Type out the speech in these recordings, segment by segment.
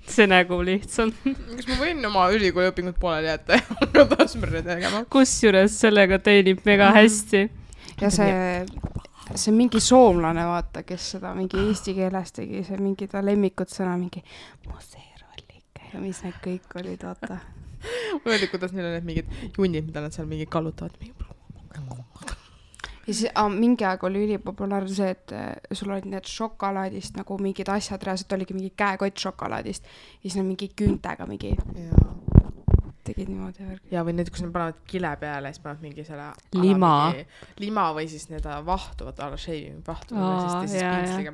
see nägu lihtsalt. Kas ma võin oma ülikooli õpingut pooleli jätta ja hakata asmärre tegema? Kusjuures sellega teenib mega hästi. Ja see mingi soomlane, vaata, kes seda mingi eesti keeles tegi, see mingi ta lemmikut sõna, mingi museerallike ja mis need kõik olid, vaata. Ma öeldi, kuidas neil on need mingid junnid, mida nad seal mingi kallutavad. Ja siis mingi aeg oli ülipopulaarne see, et sul olid need šokolaadist nagu mingid asjad, reaalselt oligi mingi käekott šokolaadist ja siis nad mingi küüntega mingi tegid niimoodi värgi. Ja või need, kus nad panevad kile peale ja siis panevad mingi selle lima või siis need vahtuvad, alla shaving vahtuvad ja siis pintsliga.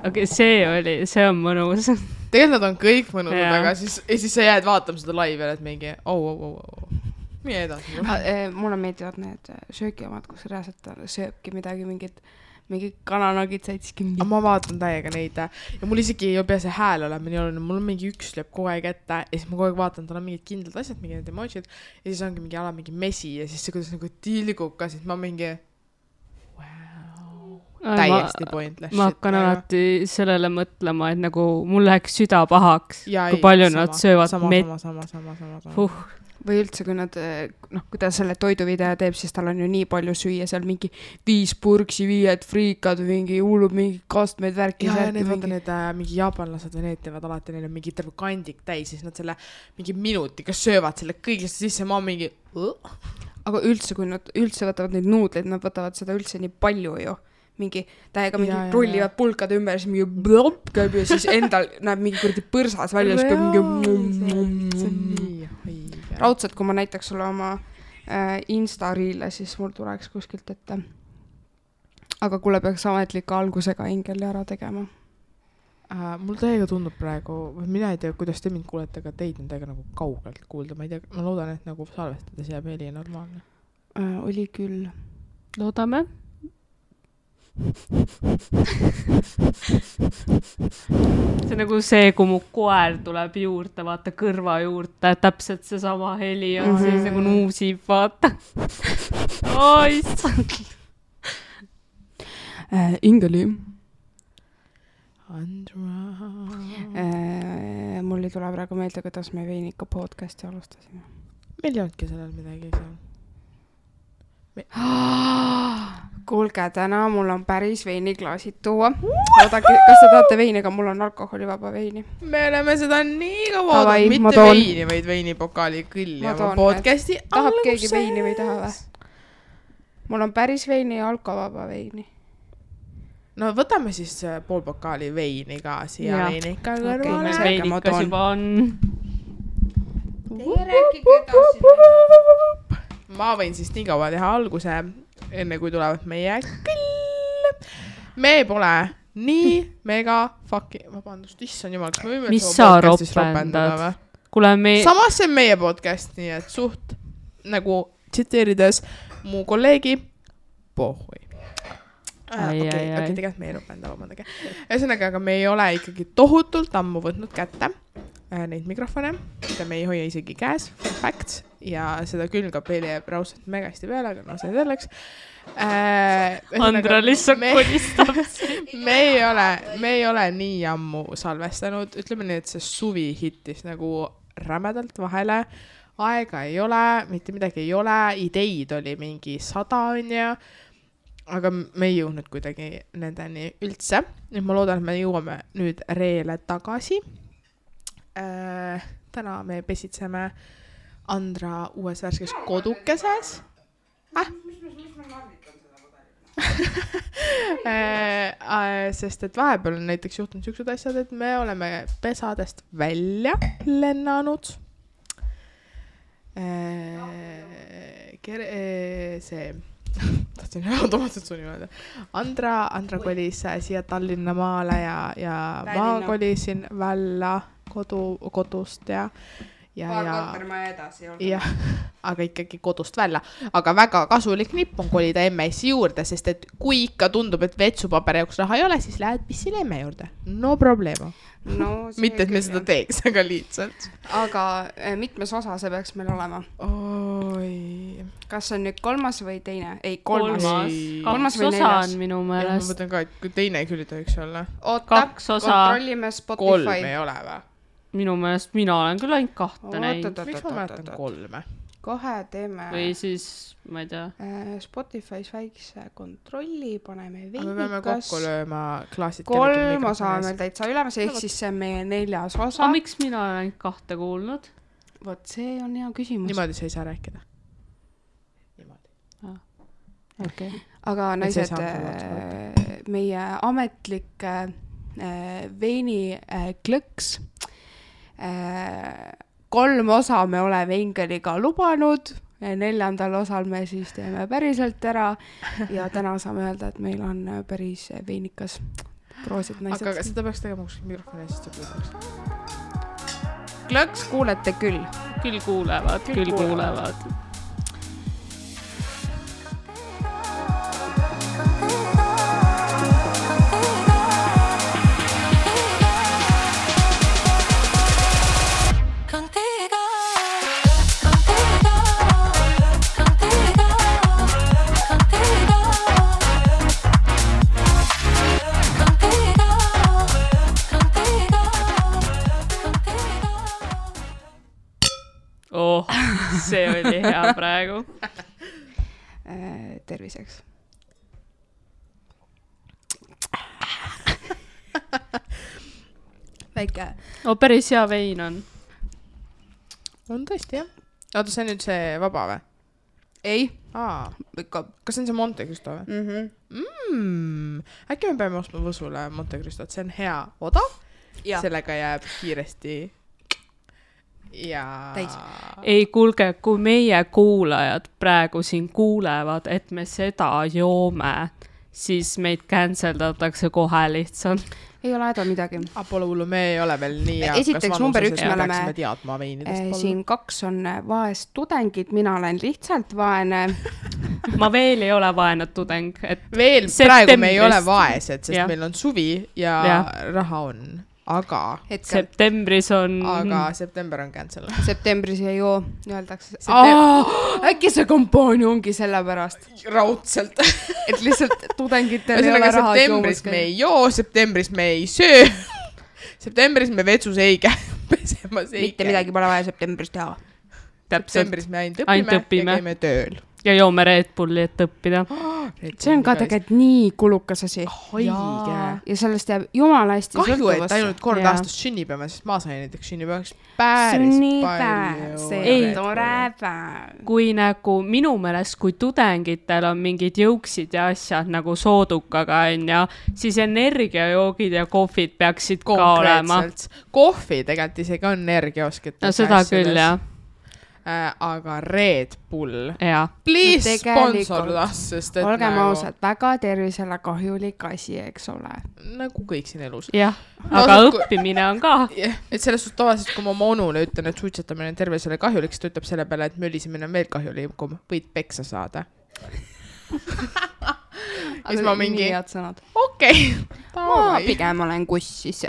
Okei, see on mõnus. Tegelikult nad on kõik mõnusad, aga siis sa jääd vaatama seda laivi ja et mingi Mie edasi. Mulle meeldivad need söögiomad, kus reaalselt sööbki midagi, mingi kananagid saidski mingi. Ma vaatan täiega neid ja mul isegi ei pea see hääl olema nii oluline. Mul on mingi üks lööb kogu aeg ette ja siis ma kogu aeg vaatan, tal on mingid kindlad asjad, mingi need emojid ja siis ongi mingi ala mingi mesi ja siis see kuidas nagu tilgub ka, siis ma mingi täiesti pointless. Ma hakkan alati sellele mõtlema, et nagu mul läheks süda pahaks, kui palju nad söövad Sama. Või üldse, kui nad, kui ta selle toiduvideo teeb, siis tal on ju nii palju süüa, seal mingi 5 purksi, 5 friikad, mingi hullub, mingi kastmeid värki. Ja need vaata need mingi jaapanlased või need teevad alati, neil on mingi terve kandik täis, siis nad selle mingi minutiga söövad selle kõigest sisse, ma mingi Aga üldse, kui nad üldse võtavad neid nuudleid, nad võtavad seda üldse nii palju ju. Mingi täiega mingi rullivad pulkade ümber, siis mingi blop käib ja siis endal näeb mingi kurdi põrsas välja, siis käib mingi raudselt, kui ma näitaks sulle oma Insta-riile, siis mul tuleks kuskilt ette. Aga kuule peaks ametliku algusega Ingeli ära tegema. Mul täiega tundub praegu, mina ei tea, kuidas te mind kuulete, aga teid on täiega nagu kaugelt kuulda. Ma ei tea, ma loodan, et nagu salvestades jääb heli normaalne. Oli küll. Loodame. See nagu see, kui mu koer tuleb juurde, vaata kõrva juurde, täpselt see sama heli on siis nagu nuusib, vaata. Issand. Ingeli. Andra. Mul ei tule praegu meelde, kuidas me Veinika podcasti alustasime. Meil ei olnudki sellel midagi seal. Kuulge, täna mul on päris veiniklaasid tuua. Oodake, kas te tahate veini, aga mul on alkoholivaba veini. Me oleme seda nii kaua oodanud, mitte veini, vaid veinipokaali kõlli oma podcasti alguses. Tahab keegi veini või taha või? Mul on päris veini ja alkovaba veini. No võtame siis pool pokaali veini ka siia veinika kõrvale. Veinikas juba on. Ma võin siis nii kaua teha alguse, enne kui tulevad meie küll. Me pole nii mega vabandust, issand jumal, kas me võime mis sa ropendad? Samas see on meie podcast, nii et suht nagu tsiteerides mu kolleegi pohhui. Okei, tegelikult me ei ropenda, vabandage. Ühesõnaga, aga me ei ole ikkagi tohutult ammu võtnud kätte neid mikrofone, mida me ei hoia isegi käes, facts, ja seda külgab jääb raudselt mega hästi peale, aga no see selleks. Andra lihtsalt kolistab. Me ei ole nii ammu salvestanud, ütleme nii, et see suvi hittis nagu rämedalt vahele, aega ei ole, mitte midagi ei ole, ideid oli mingi 100 on ja aga me ei jõudnud kuidagi nendeni üldse. Nüüd ma loodan, et me jõuame nüüd reele tagasi. Täna me pesitseme Andra uues värskes kodukeses. Sest et vahepeal on näiteks juhtunud siuksed asjad, et me oleme pesadest välja lennanud. See tahtsin automaatselt su niimoodi. Andra kolis siia Tallinna maale ja ma kolisin välja kodust ja kortermaja edasi ja, aga ikkagi kodust välja. Aga väga kasulik nipp on kolida emme-issi juurde, sest et kui ikka tundub, et vetsupaperi jaoks raha ei ole, siis lähed pissile emme juurde. No probleema. No, mitte, et me seda teeks, aga lihtsalt. Aga mitmes osa see peaks meil olema? Oi. kas see on nüüd 3. või teine? Ei, 3. Kolmas või osa 4. on minu ma meelest. mõtlen ka, et kui teine küll ei tohiks olla. Oota, 2 osa. kontrollime 3 Spotify. ei ole või? Minu meelest mina olen küll ainult 2 näinud. Miks ma mäletan 3? Kohe teeme Või siis, ma ei tea. Spotify's väikse kontrolli, paneme Aga me peame kokku lööma klaasid. 3 osa on meil täitsa ülemas, ehk siis see on meie 4. osa. Aga miks mina olen ainult 2 kuulnud? Vot see on hea küsimus. Niimoodi sa ei saa rääkida. Niimoodi. Okay. Aga naised, meie ametlik veini klõks. 3 osa me oleme Ingeliga lubanud. 4. osal me siis teeme päriselt ära. Ja täna saame öelda, et meil on päris veinikas. Proosid naised. Aga seda peaks tegema kus mikrofoni eest ja kuuleks. Klõks kuulete küll. Küll kuulevad. See oli hea praegu. Terviseks. Väike. Päris hea vein on. On tõesti, jah. Oota, see on nüüd see vaba või? Ei. Kas see on see Monte Cristo või? Äkki me peame ostma Võsule Monte Cristot, see on hea odav. Sellega jääb kiiresti ja täis. Ei, kuulge, kui meie kuulajad praegu siin kuulevad, et me seda joome, siis meid canceldatakse kohe lihtsalt. Ei ole häda midagi. Pole hullu, me ei ole veel nii esiteks number 1 me oleme teadma veinidest. Siin 2 on vaest tudengid, mina olen lihtsalt vaene. Ma veel ei ole vaene tudeng. Veel praegu me ei ole vaesed, sest meil on suvi ja raha on. Aga septembris on... Aga september on cancel. Septembris ei joo, öeldakse. Äkki see kampaania ongi selle pärast? Raudselt. Et lihtsalt tudengitel ei ole raha septembris me ei joo, septembris me ei söö. Septembris me vetsus ei käi pesemas. Mitte midagi pole vaja septembris teha. Septembris me ainult õpime ja käime tööl. Ja joome Red Bulli, et õppida. See on ka tegelikult nii kulukas asi. Haige. Ja sellest jääb jumala hästi sõltuvasse. Kahju, et ainult kord aastas sünnipäeva, sest ma sain näiteks sünnipäevaks päris palju. See on tore päev. Kui nagu minu meelest, kui tudengitel on mingid jõuksid ja asjad nagu soodukaga on ja siis energiajoogid ja kohvid peaksid ka olema. Kohvi tegelikult isegi on energiaoskit. No seda küll, jah. Aga Red Bull. Please sponsor us, sest et olgem ausad, väga tervisele kahjulik asi, eks ole. Nagu kõik siin elus. Jah, aga õppimine on ka. Et selles suht tavaliselt, kui ma oma onule ütlen, et suitsetamine on tervisele kahjulik, siis ta ütleb selle peale, et möllisimine on veel kahjulikum, võid peksa saada. Aga ma mingi... nii head sõnad. Okei. Ma pigem olen kussis.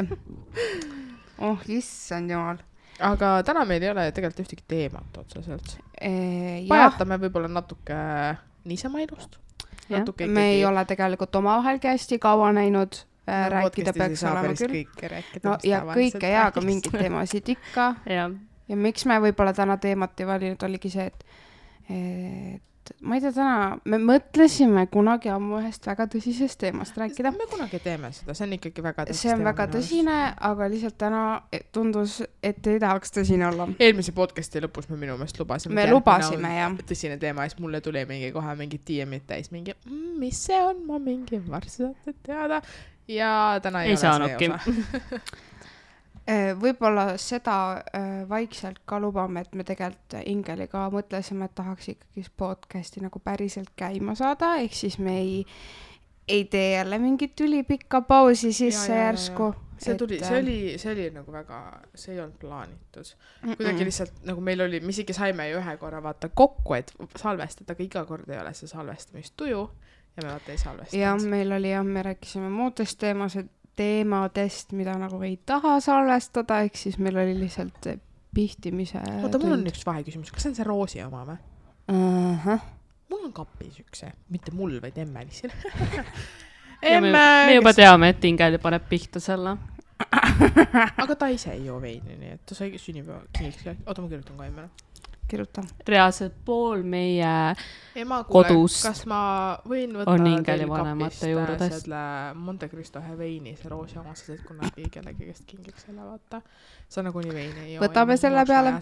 Issand jumal. Aga täna meil ei ole tegelikult ühtegi teemat otseselt. Pajatame võib-olla natuke niisama ilust. Me ei ole tegelikult omavahelgi hästi kaua näinud. Rääkida peaks olema küll. No, ja kõike ja ka mingid teemasid ikka. Ja miks me võib-olla täna teemat ei valinud, oligi see, et ma ei tea täna, me mõtlesime kunagi ammu ühest väga tõsisest teemast rääkida. Me kunagi teeme seda, see on ikkagi väga tõsine. See on väga tõsine, aga lihtsalt täna tundus, et ei tahaks tõsine olla. Eelmise podcasti lõpus me minu meelest lubasime. Me lubasime, jah. Tõsine teema, siis mulle tuli mingi kohe mingi DM-id täis, mingi, mis see on, ma mingi varsti saate teada. Ja täna ei ole saanudki. See osa. Võib-olla seda vaikselt ka lubame, et me tegelikult Ingeliga mõtlesime, et tahaks ikkagi podcasti nagu päriselt käima saada, ehk siis me ei tee jälle mingit ülipikka pausi sisse järsku. See oli nagu väga, see ei olnud plaanitud. Kuidagi lihtsalt nagu meil oli, me isegi saime ju ühe korra vaata kokku, et salvestada, aga iga kord ei ole see salvestamistuju ja me vaata ei salvestanud. Ja meil oli me rääkisime muudest teemadest, mida nagu ei taha salvestada, ehk siis meil oli lihtsalt pihtimise Oota, mul on üks vaheküsimus. Kas see on see Roosi oma või? Mul on kapis üks, mitte mul, vaid Emmelisil. Me juba teame, et Ingeli paneb pihta selle. Aga ta ise ei joo veini, nii et ta sai sünnipäeva kingiks. Oota, ma kirjutan ka Emmele. Kirjuta. Reaalselt pool meie Ema, kuule, kodust kas ma võin võtta on Ingeli vanemate juurdes? Selle Monte Cristo veini, see roosi oma, sest kui nad kellegi käest kingiks selle, vaata. Sa nagu nii veini ei joo. Võtame selle peale.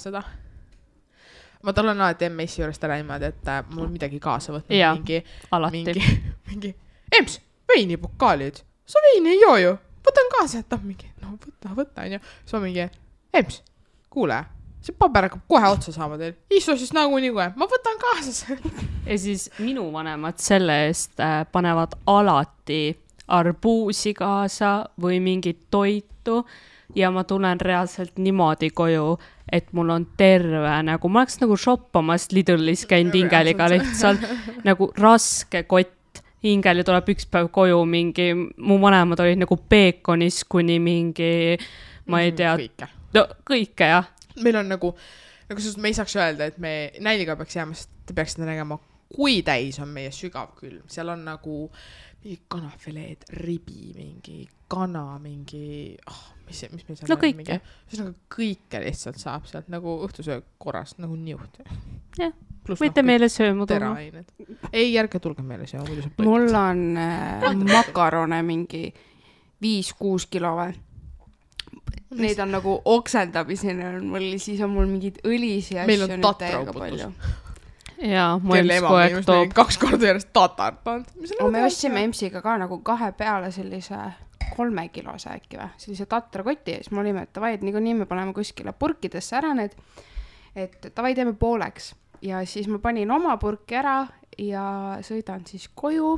Ma tulen alati Emmessi juurest ära niimoodi, et mul midagi kaasa võtnud. Ja, mingi Ems, veinipokaalid. Sa veini ei joo ju. Võtan kaasa, et mingi, no võta, on ju. Siis ma mingi, Ems, kuule, see paber hakkab kohe otsa saama teil. Istu siis nagu nii kohe, ma võtan kaasa. Ja siis minu vanemad selle eest panevad alati arbuusi kaasa või mingit toitu ja ma tulen reaalselt niimoodi koju, et mul on terve, nagu ma oleks nagu shoppamas Lidlis käinud Ingeliga lihtsalt nagu raske kott. Ingeli tuleb üks päev koju mingi, mu vanemad olid nagu peekonis kuni mingi, ma ei tea, kõike jah. Meil on nagu me ei saaks öelda, et me nälga peaks jääma, sest te peaksite nägema, kui täis on meie sügav külm. Seal on nagu mingi kanafileed, ribi, mingi kana, mingi, mis meil seal no kõike. Siis nagu kõike lihtsalt saab sealt nagu õhtusöö korras, nagu niuht. Jah. Võite meile sööma tulla. Ei, järge tulge meile sööma. Mul on makarone mingi 5-6 kilo või. Neid on nagu oksendamiseni, siis on mul mingid õlisi asju. Meil on tatrauputus. Jaa, mu ems kogu aeg toob. 2 korda järjest tatart pand. Me ostsime emsiga ka nagu 2 peale sellise 3 kilose äkki või. Sellise tatrakoti ja siis me olime, et tavai, et nii me paneme kuskile purkidesse ära need, et tavai teeme pooleks. Ja siis ma panin oma purki ära ja sõidan siis koju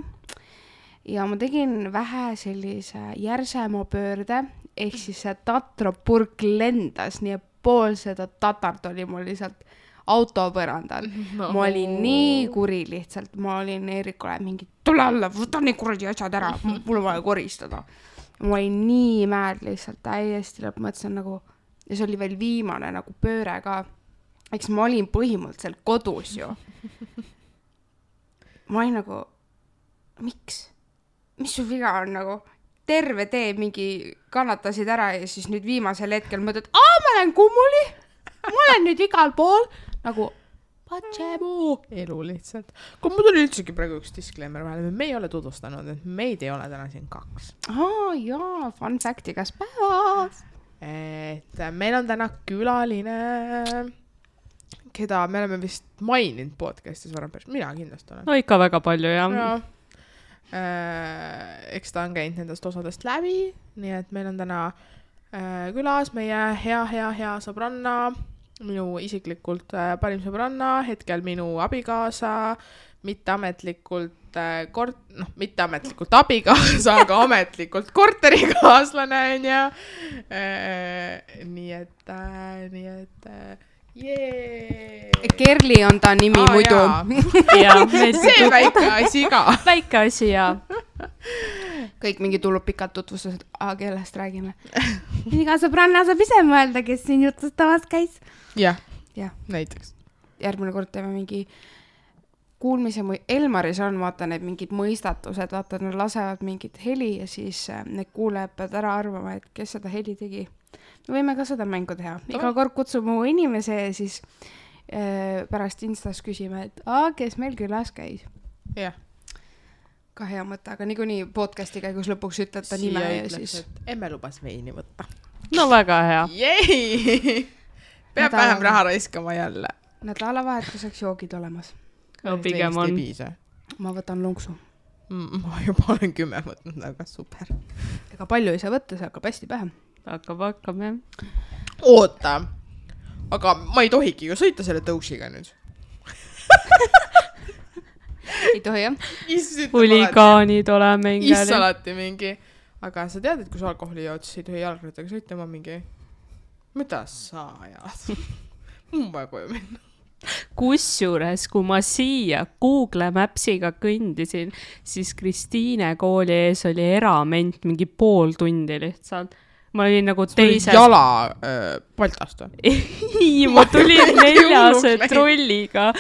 ja ma tegin vähe sellise järsema pöörde, ehk siis see tatrapurk lendas, nii et pool seda tatart oli mul lihtsalt autopõrandal. No. Ma olin nii kuri lihtsalt, ma olin Eerikule mingi, tule alla, võta nii kuradi asjad ära, mul on vaja koristada. Ma olin nii mäed lihtsalt, täiesti lõpmõtlesin nagu, ja see oli veel viimane nagu pööre ka. Eks ma olin põhimõtteliselt kodus ju. Ma olin nagu, miks? Mis su viga on nagu? Terve tee mingi kannatasid ära ja siis nüüd viimasel hetkel mõtled, ma olen kummuli, ma olen nüüd igal pool. Nagu, elu lihtsalt. Kui mul tuli üldsegi praegu üks disclaimer vahele, me ei ole tutvustanud, et meid ei ole täna siin 2. Jaa, fun fact igas päevas. Et meil on täna külaline... keda me oleme vist maininud podcastis varem päris, mina kindlasti olen. No ikka väga palju, jah. Eks ta on käinud nendest osadest läbi, nii et meil on täna külas meie hea sõbranna, minu isiklikult parim sõbranna, hetkel minu abikaasa, mitteametlikult abikaasa, aga ametlikult korterikaaslane on ja nii et Kerli on ta nimi muidu. See väike asi ka. Väike asi, jaa. Kõik mingi tulub pikalt tutvustused, kellest räägime. Iga sõbranna saab ise mõelda, kes siin jutustamas käis. Jah, näiteks. Järgmine kord teeme mingi kuulmise, Elmaris on, vaata need mingid mõistatused, vaata, nad lasevad mingit heli ja siis need kuulajad peavad ära arvama, et kes seda heli tegi. Me võime ka seda mängu teha. Iga kord kutsume mu inimese ja siis pärast Instas küsime, et kes meil külas käis. Jah. Ka hea mõte, aga niikuinii podcasti käigus lõpuks ütled ta nime ja siis... Emme lubas veini võtta. No väga hea. Jei! Peab vähem raha raiskama jälle. Nädalavahetuseks joogid olemas. No pigem on. Ma võtan lonksu. Ma juba olen 10 võtnud, aga super. Ega palju ei saa võtta, see hakkab hästi pähe. Hakkab, jah. Oota, aga ma ei tohigi ju sõita selle tõusiga nüüd. Ei tohi, jah? Huligaanid oleme Ingeli. Issa alati mingi. Aga sa tead, et kui sa alkoholi jood, siis ei tohi jalgrattaga sõita, ma mingi, mida sa ajad? Mul vaja koju minna. Kusjuures, kui ma siia Google Mapsiga kõndisin, siis Kristiine kooli ees oli erament mingi pool tundi lihtsalt. Ma olin nagu teisel... jala Baltast või? ei, ma tulin 4 trolliga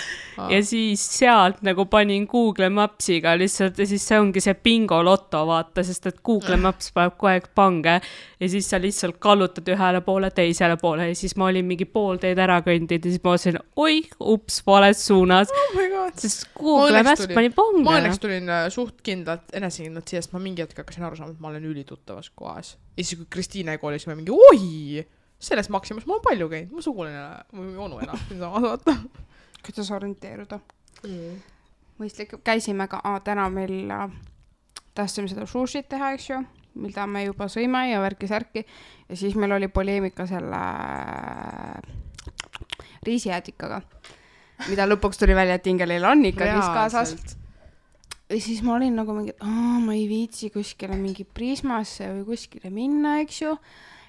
ja siis sealt nagu panin Google Mapsiga lihtsalt ja siis see ongi see bingo loto, vaata, sest et Google Maps paneb kogu aeg pange ja siis sa lihtsalt kallutad ühele poole, teisele poole ja siis ma olin mingi pool teed ära kõndinud ja siis ma olin, oi, ups, vales suunas. Oh my god. Sest Google Maps pani pange. Ma õnneks tulin suht kindlalt, enesekindlalt siia, sest ma mingi hetk hakkasin aru saama, et ma olen ülituttavas kohas. Ja siis kui Kristiine koolis me mingi, oi, selles Maximas ma olen palju käinud, mu suguline või onu enam siin samas vaata. Kuidas orienteeruda? Mõistlik, käisime ka, täna meil tahtsime seda sushit teha, eks ju, mida me juba sõime ja värki-särki ja siis meil oli poleemika selle riisijäätikaga, mida lõpuks tuli välja, et Ingelil on ikkagi kaasas. Ja siis ma olin nagu mingi, ma ei viitsi kuskile mingi Prismasse või kuskile minna, eks ju,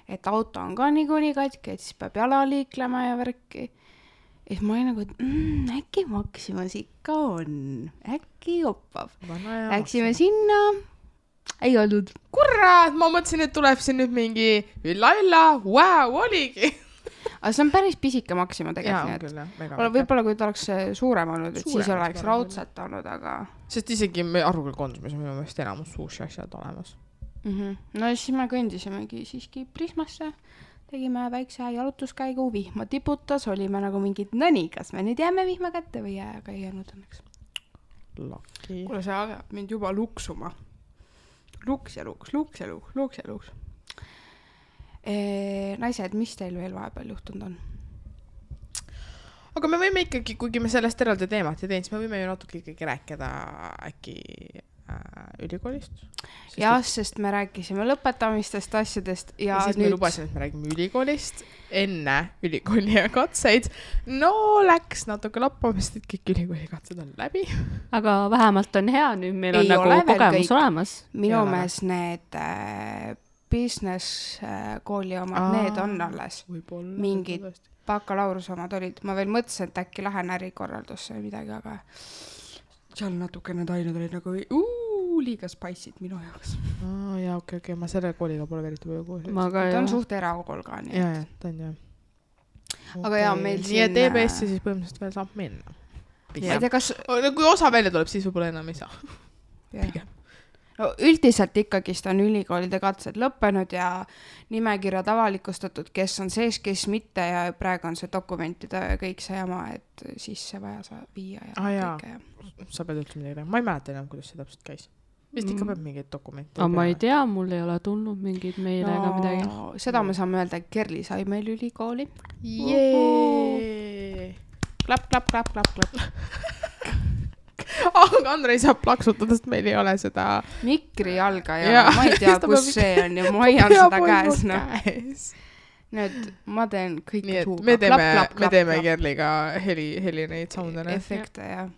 et auto on ka niikuinii katki, et siis peab jala liiklema ja värki. Ja ma olin nagu, et äkki Maximas ikka on, äkki joppab. Läksime sinna, ei olnud. Kurat, ma mõtlesin, et tuleb siin nüüd mingi ülla, wow, oligi. Aga see on päris pisike Maxima tegelikult. Võib-olla kui ta oleks suurem olnud, et siis oleks raudselt olnud, aga... Sest isegi me Arvuküll konsumis on minu meelest enamus sushi asjad olemas. No siis me kõndisimegi siiski Prismasse. Tegime väikse jalutuskäigu, vihma tiputas, olime nagu mingid, no nii, kas me nüüd jääme vihma kätte või jää, aga ei jäänud õnneks. Laki. Kuule, see agab mind juba luksuma. Luks ja luks. Naised, mis teil veel vahepeal juhtunud on? Aga me võime ikkagi, kuigi me sellest eraldi teemat ei teinud, siis me võime ju natuke ikkagi rääkida äkki ülikoolist. Sest me rääkisime lõpetamistest asjadest ja siis nüüd... me lubasin, et me räägime ülikoolist enne ülikooli ja katseid. No läks natuke lappamist, et kõik ülikooli katsed on läbi. Aga vähemalt on hea, nüüd meil on nagu kogemus olemas. Minu mees need business kooli omad, need on alles. Mingid bakalaureuse omad olid. Ma veel mõtlesin, et äkki lähen ärikorraldusse või midagi, aga seal natuke need ained olid nagu liiga spice'id minu jaoks. Jaa, okei, ma selle kooliga pole veriti palju koos. Ta on suht erakool ka. Jaa, ta on jah. Aga jaa, meil siin... Nii et EBS-i siis põhimõtteliselt veel saab minna. Kui osa välja tuleb, siis võib-olla enam ei saa. Pigem. No, üldiselt ikkagist on ülikoolide katsed lõppenud ja nimekirjad avalikustatud, kes on sees, kes mitte ja praegu on see dokumentide kõik see jama, et sisse vaja viia ja kõike. Sa pead üldse midagi. Ma ei mäleta enam, kuidas see täpselt käis. Vist ikka peab mingeid dokumente. Aga ma ei tea, mul ei ole tulnud mingeid meile ega midagi. Seda me saame öelda, et Kerli sai meil ülikooli. Klapp. Aga Andrei saab plaksutada, sest meil ei ole seda... Mikri jalga ja ma ei tea, kus see on ja ma hoian seda käes. Nüüd ma teen kõike suuga. Me teeme Kerliga heli neid soundene. Efekte, jah.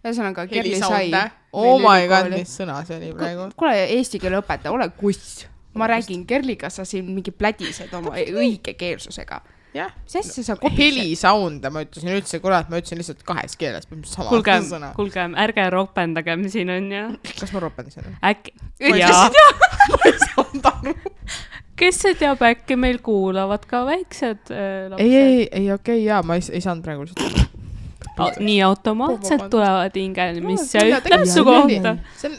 Ühesõnaga, Kerli sai... Oh my god, mis sõna see oli praegu? Kuule, eesti keele õpetaja, ole kuss. Ma räägin Kerliga, sa siin mingi plädised oma õige keelsusega. Jah, helisound, ma ütlesin üldse, kurat, ma ütlesin lihtsalt 2 keeles. Kuulge, ärge ropendagem siin on ja... Kas ma ropendasin? Äkki... Ma ei saanud aru. Kes see teab, äkki meil kuulavad ka väiksed lapsed? Ei, okei, jaa, ma ei saanud praegu lihtsalt... Nii automaatselt tulevad Ingel, mis see ütleb su kohta.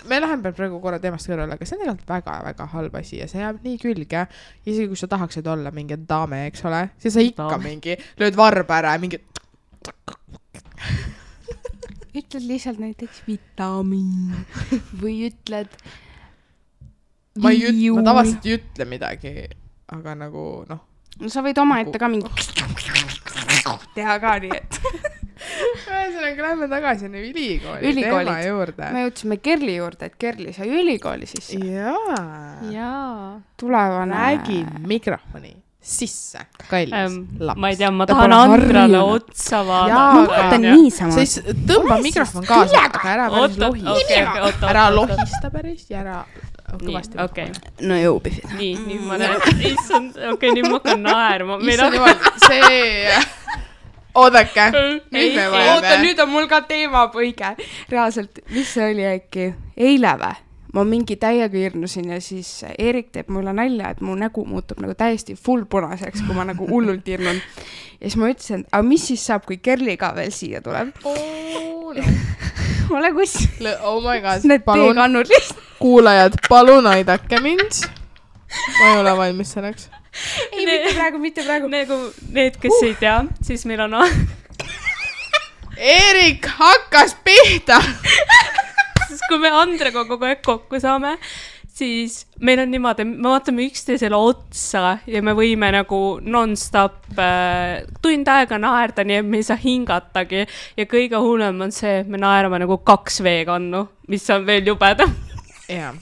Me läheme praegu korra teemast kõrvale, aga see on tegelikult väga-väga halb asi ja see jääb nii külge. Isegi kui sa tahaksid olla mingi daame, eks ole, siis sa ikka mingi lööd varba ära ja mingi... Ütled lihtsalt näiteks vitamiin või ütled... Ma tavaliselt ei ütle midagi, aga nagu noh... No sa võid oma ette ka mingi... teha ka nii, et... Ühesõnaga, lähme tagasi ülikooli teema juurde. Me jõudsime Kerli juurde, et Kerli sai ülikooli sisse. Jaa. Tulevane... Räägi mikrofoni sisse, kallis laps. Ma ei tea, ma tahan Andrale otsa vaadata. Ma vaatan niisama. Siis tõmba mikrofon kaasa, aga ära päris lohista. Ära lohista päris ja ära... Okei. No jõubisid. Nii, ma näen. Issand, nüüd ma hakkan naerma. Issand jumal, see... Oodake. Oota, nüüd on mul ka teemapõige. Reaalselt, mis see oli äkki? Eile või? ma mingi täiega hirnusin ja siis Eerik teeb mulle nalja, et mu nägu muutub nagu täiesti full punaseks, kui ma nagu hullult hirnun. Ja siis ma ütlesin, aga mis siis saab, kui Kerli ka veel siia tuleb? Ole kus. Oh my god. Need teekannud lihtsalt. Kuulajad, palun aidake mind. Ma ei ole valmis selleks. Ei, mitte praegu. Nagu need, kes ei tea, siis meil on... Eerik hakkas pihta. Sest kui me Andrega kogu aeg kokku saame, siis meil on niimoodi, me vaatame üksteisele otsa ja me võime nagu non-stop tund aega naerda, nii et me ei saa hingatagi. Ja kõige hullem on see, et me naerame nagu 2 veekannu, mis on veel jubedam. Jaa.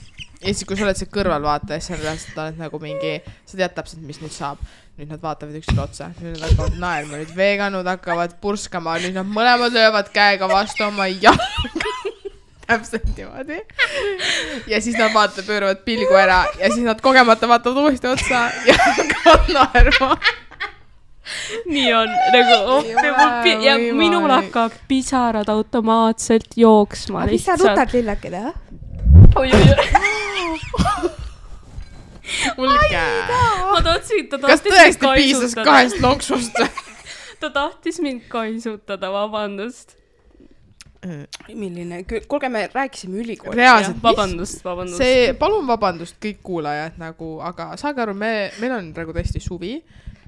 Ja siis, kui sa oled see kõrvalvaataja, siis sa oled nagu mingi, sa tead täpselt, mis nüüd saab. Nüüd nad vaatavad üksteisele otsa. Nüüd nad hakkavad naerma. Nüüd veekannud hakkavad purskama. Nüüd nad mõlemad löövad käega vastu oma jalga. Täpselt niimoodi. Ja siis nad pööravad pilgu ära. Ja siis nad kogemata vaatavad uuesti otsa ja hakkavad naerma. Nii on. Ja minul hakkab pisarad automaatselt jooksma. Mis sa rutad lillakene? Mulge. Kas tõesti piisas 2 lonksust? Ta tahtis mind kaisutada, vabandust. Milline? Kuulge, me rääkisime ülikoolist. Reaalselt. Vabandust. Palun vabandust kõik kuulajad nagu, aga saage aru, meil on praegu tõesti suvi.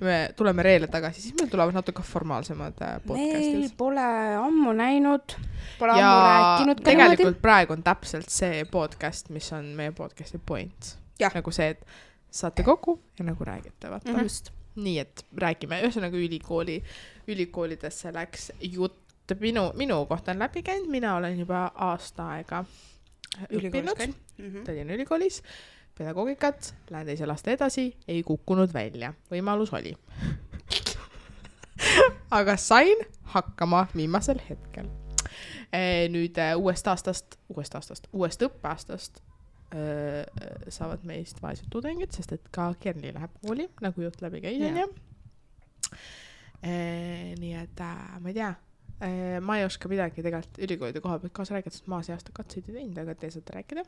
Me tuleme reele tagasi, siis meil tulevad natuke formaalsemad podcastid. Meil pole ammu näinud, pole ja ammu rääkinud. Tegelikult praegu on täpselt see podcast, mis on meie podcasti point. Ja. Nagu see, et saate kokku ja nagu räägite. Just. Nii, et räägime. Ühesõnaga ülikoolidesse läks jutt. Minu kohta on läbi käinud. Mina olen juba aasta aega õppinud. Tallinna ülikoolis. Pedagoogikat, lähen 2. aasta edasi, ei kukkunud välja. Võimalus oli. Aga sain hakkama viimasel hetkel. Nüüd uuest õppeaastast saavad meist vaesed tudengid, sest et ka Kerli läheb kooli, nagu jutt läbi käis. Nii et ma ei tea, ma ei oska midagi tegelikult ülikoolide koha pealt kaasa rääkida, sest ma see aasta katseid ei teinud, aga te saate rääkida.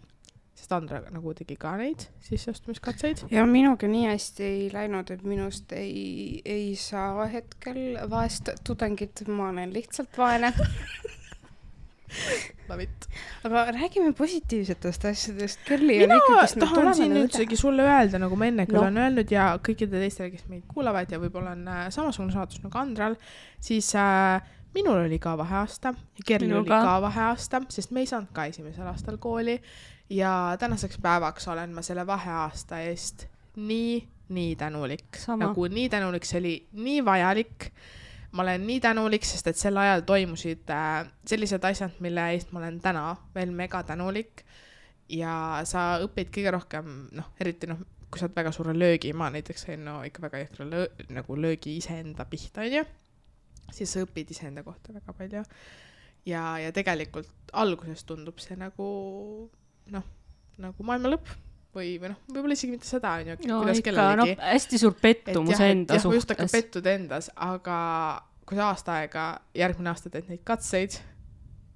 Sest Andra nagu tegi ka neid sisseastumiskatseid. Ja minuga nii hästi ei läinud, et minust ei saa hetkel vaest tudengit, ma olen lihtsalt vaene. Aga räägime positiivsetest asjadest. Kerli on ikkagi, kes mina tahan siin üldsegi sulle öelda, nagu ma enne küll olen öelnud ja kõikide teistele, kes meid kuulavad ja võib-olla on samasugune saatus nagu Andral, siis minul oli ka vaheaasta ja Kerli oli ka vaheaasta, sest me ei saanud ka 1. aastal kooli ja tänaseks päevaks olen ma selle vaheaasta eest nii tänulik. Nagu nii tänulik, see oli nii vajalik. Ma olen nii tänulik, sest et sel ajal toimusid sellised asjad, mille eest ma olen täna veel mega tänulik ja sa õpid kõige rohkem, eriti kui sa oled väga suure löögi, ma näiteks sain ikka väga jõhkra nagu löögi iseenda pihta, siis sa õpid iseenda kohta väga palju ja tegelikult alguses tundub see nagu maailma lõpp või võib-olla isegi mitte seda, kuidas kellelegi. Hästi suur pettumus enda suhtes. Just hakka pettud endas, aga kui sa aasta aega, järgmine aasta teed neid katseid,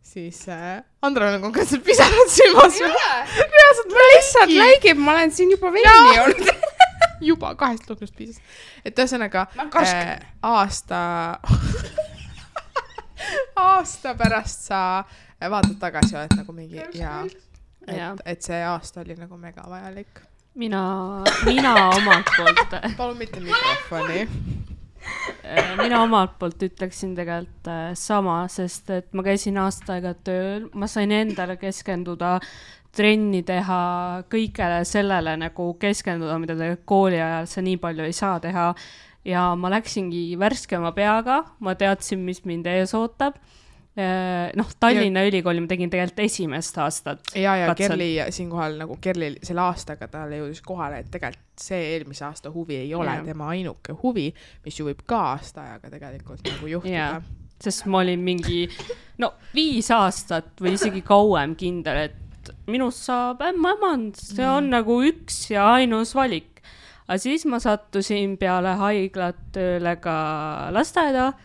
siis Andra on konkreetselt pisanud silmas. Reaalselt ma lihtsalt läigib, ma olen siin juba veini olnud. Juba 2 lugnust piisas. Et ühesõnaga aasta pärast sa vaatad tagasi, oled nagu mingi et see aasta oli nagu mega vajalik. Mina omalt poolt palun mitte mikrofoni. Mina omalt poolt ütleksin tegelikult sama, sest et ma käisin aasta aega tööl, ma sain endale keskenduda, trenni teha, kõigele sellele nagu keskenduda, mida te kooli ajal sa nii palju ei saa teha ja ma läksingi värskema peaga, ma teadsin, mis mind ees ootab. Tallinna ülikooli ma tegin tegelikult 1. aastat. Ja Kerli siinkohal nagu Kerli selle aastaga talle jõudis kohale, et tegelikult see eelmise aasta huvi ei ole tema ainuke huvi, mis ju võib ka aasta ajaga tegelikult nagu juhtuda. Sest ma olin mingi 5 aastat või isegi kauem kindel, et minust saab ämmand, see on nagu üks ja ainus valik. Aga siis ma sattusin peale haiglat tööle ka lasteaeda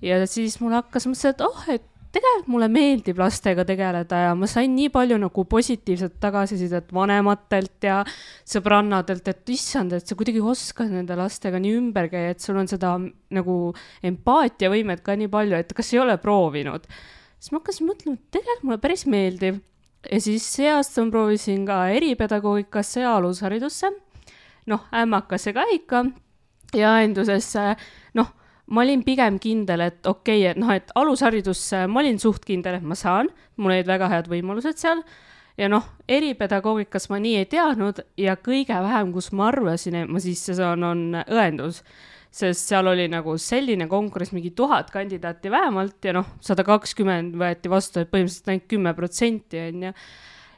ja siis mul hakkas mõtlesin, et tegelikult mulle meeldib lastega tegeleda ja ma sain nii palju nagu positiivset tagasisidet vanematelt ja sõbrannadelt, et issand, et sa kuidagi oskad nende lastega nii ümber käia, et sul on seda nagu empaatiavõimet ka nii palju, et kas ei ole proovinud. Siis ma hakkasin mõtlema, et tegelikult mulle päris meeldib. Ja siis see aasta ma proovisin ka eripedagoogikasse ja alusharidusse. Ämmakasse ka ikka ja endusesse, ma olin pigem kindel, et okei, et alusharidusse ma olin suht kindel, et ma saan, mul olid väga head võimalused seal ja eripedagoogikas ma nii ei teadnud ja kõige vähem, kus ma arvasin, et ma sisse saan, on õendus, sest seal oli nagu selline konkurss, mingi 1000 kandidaati vähemalt ja 120 võeti vastu, et põhimõtteliselt ainult 10% on ja.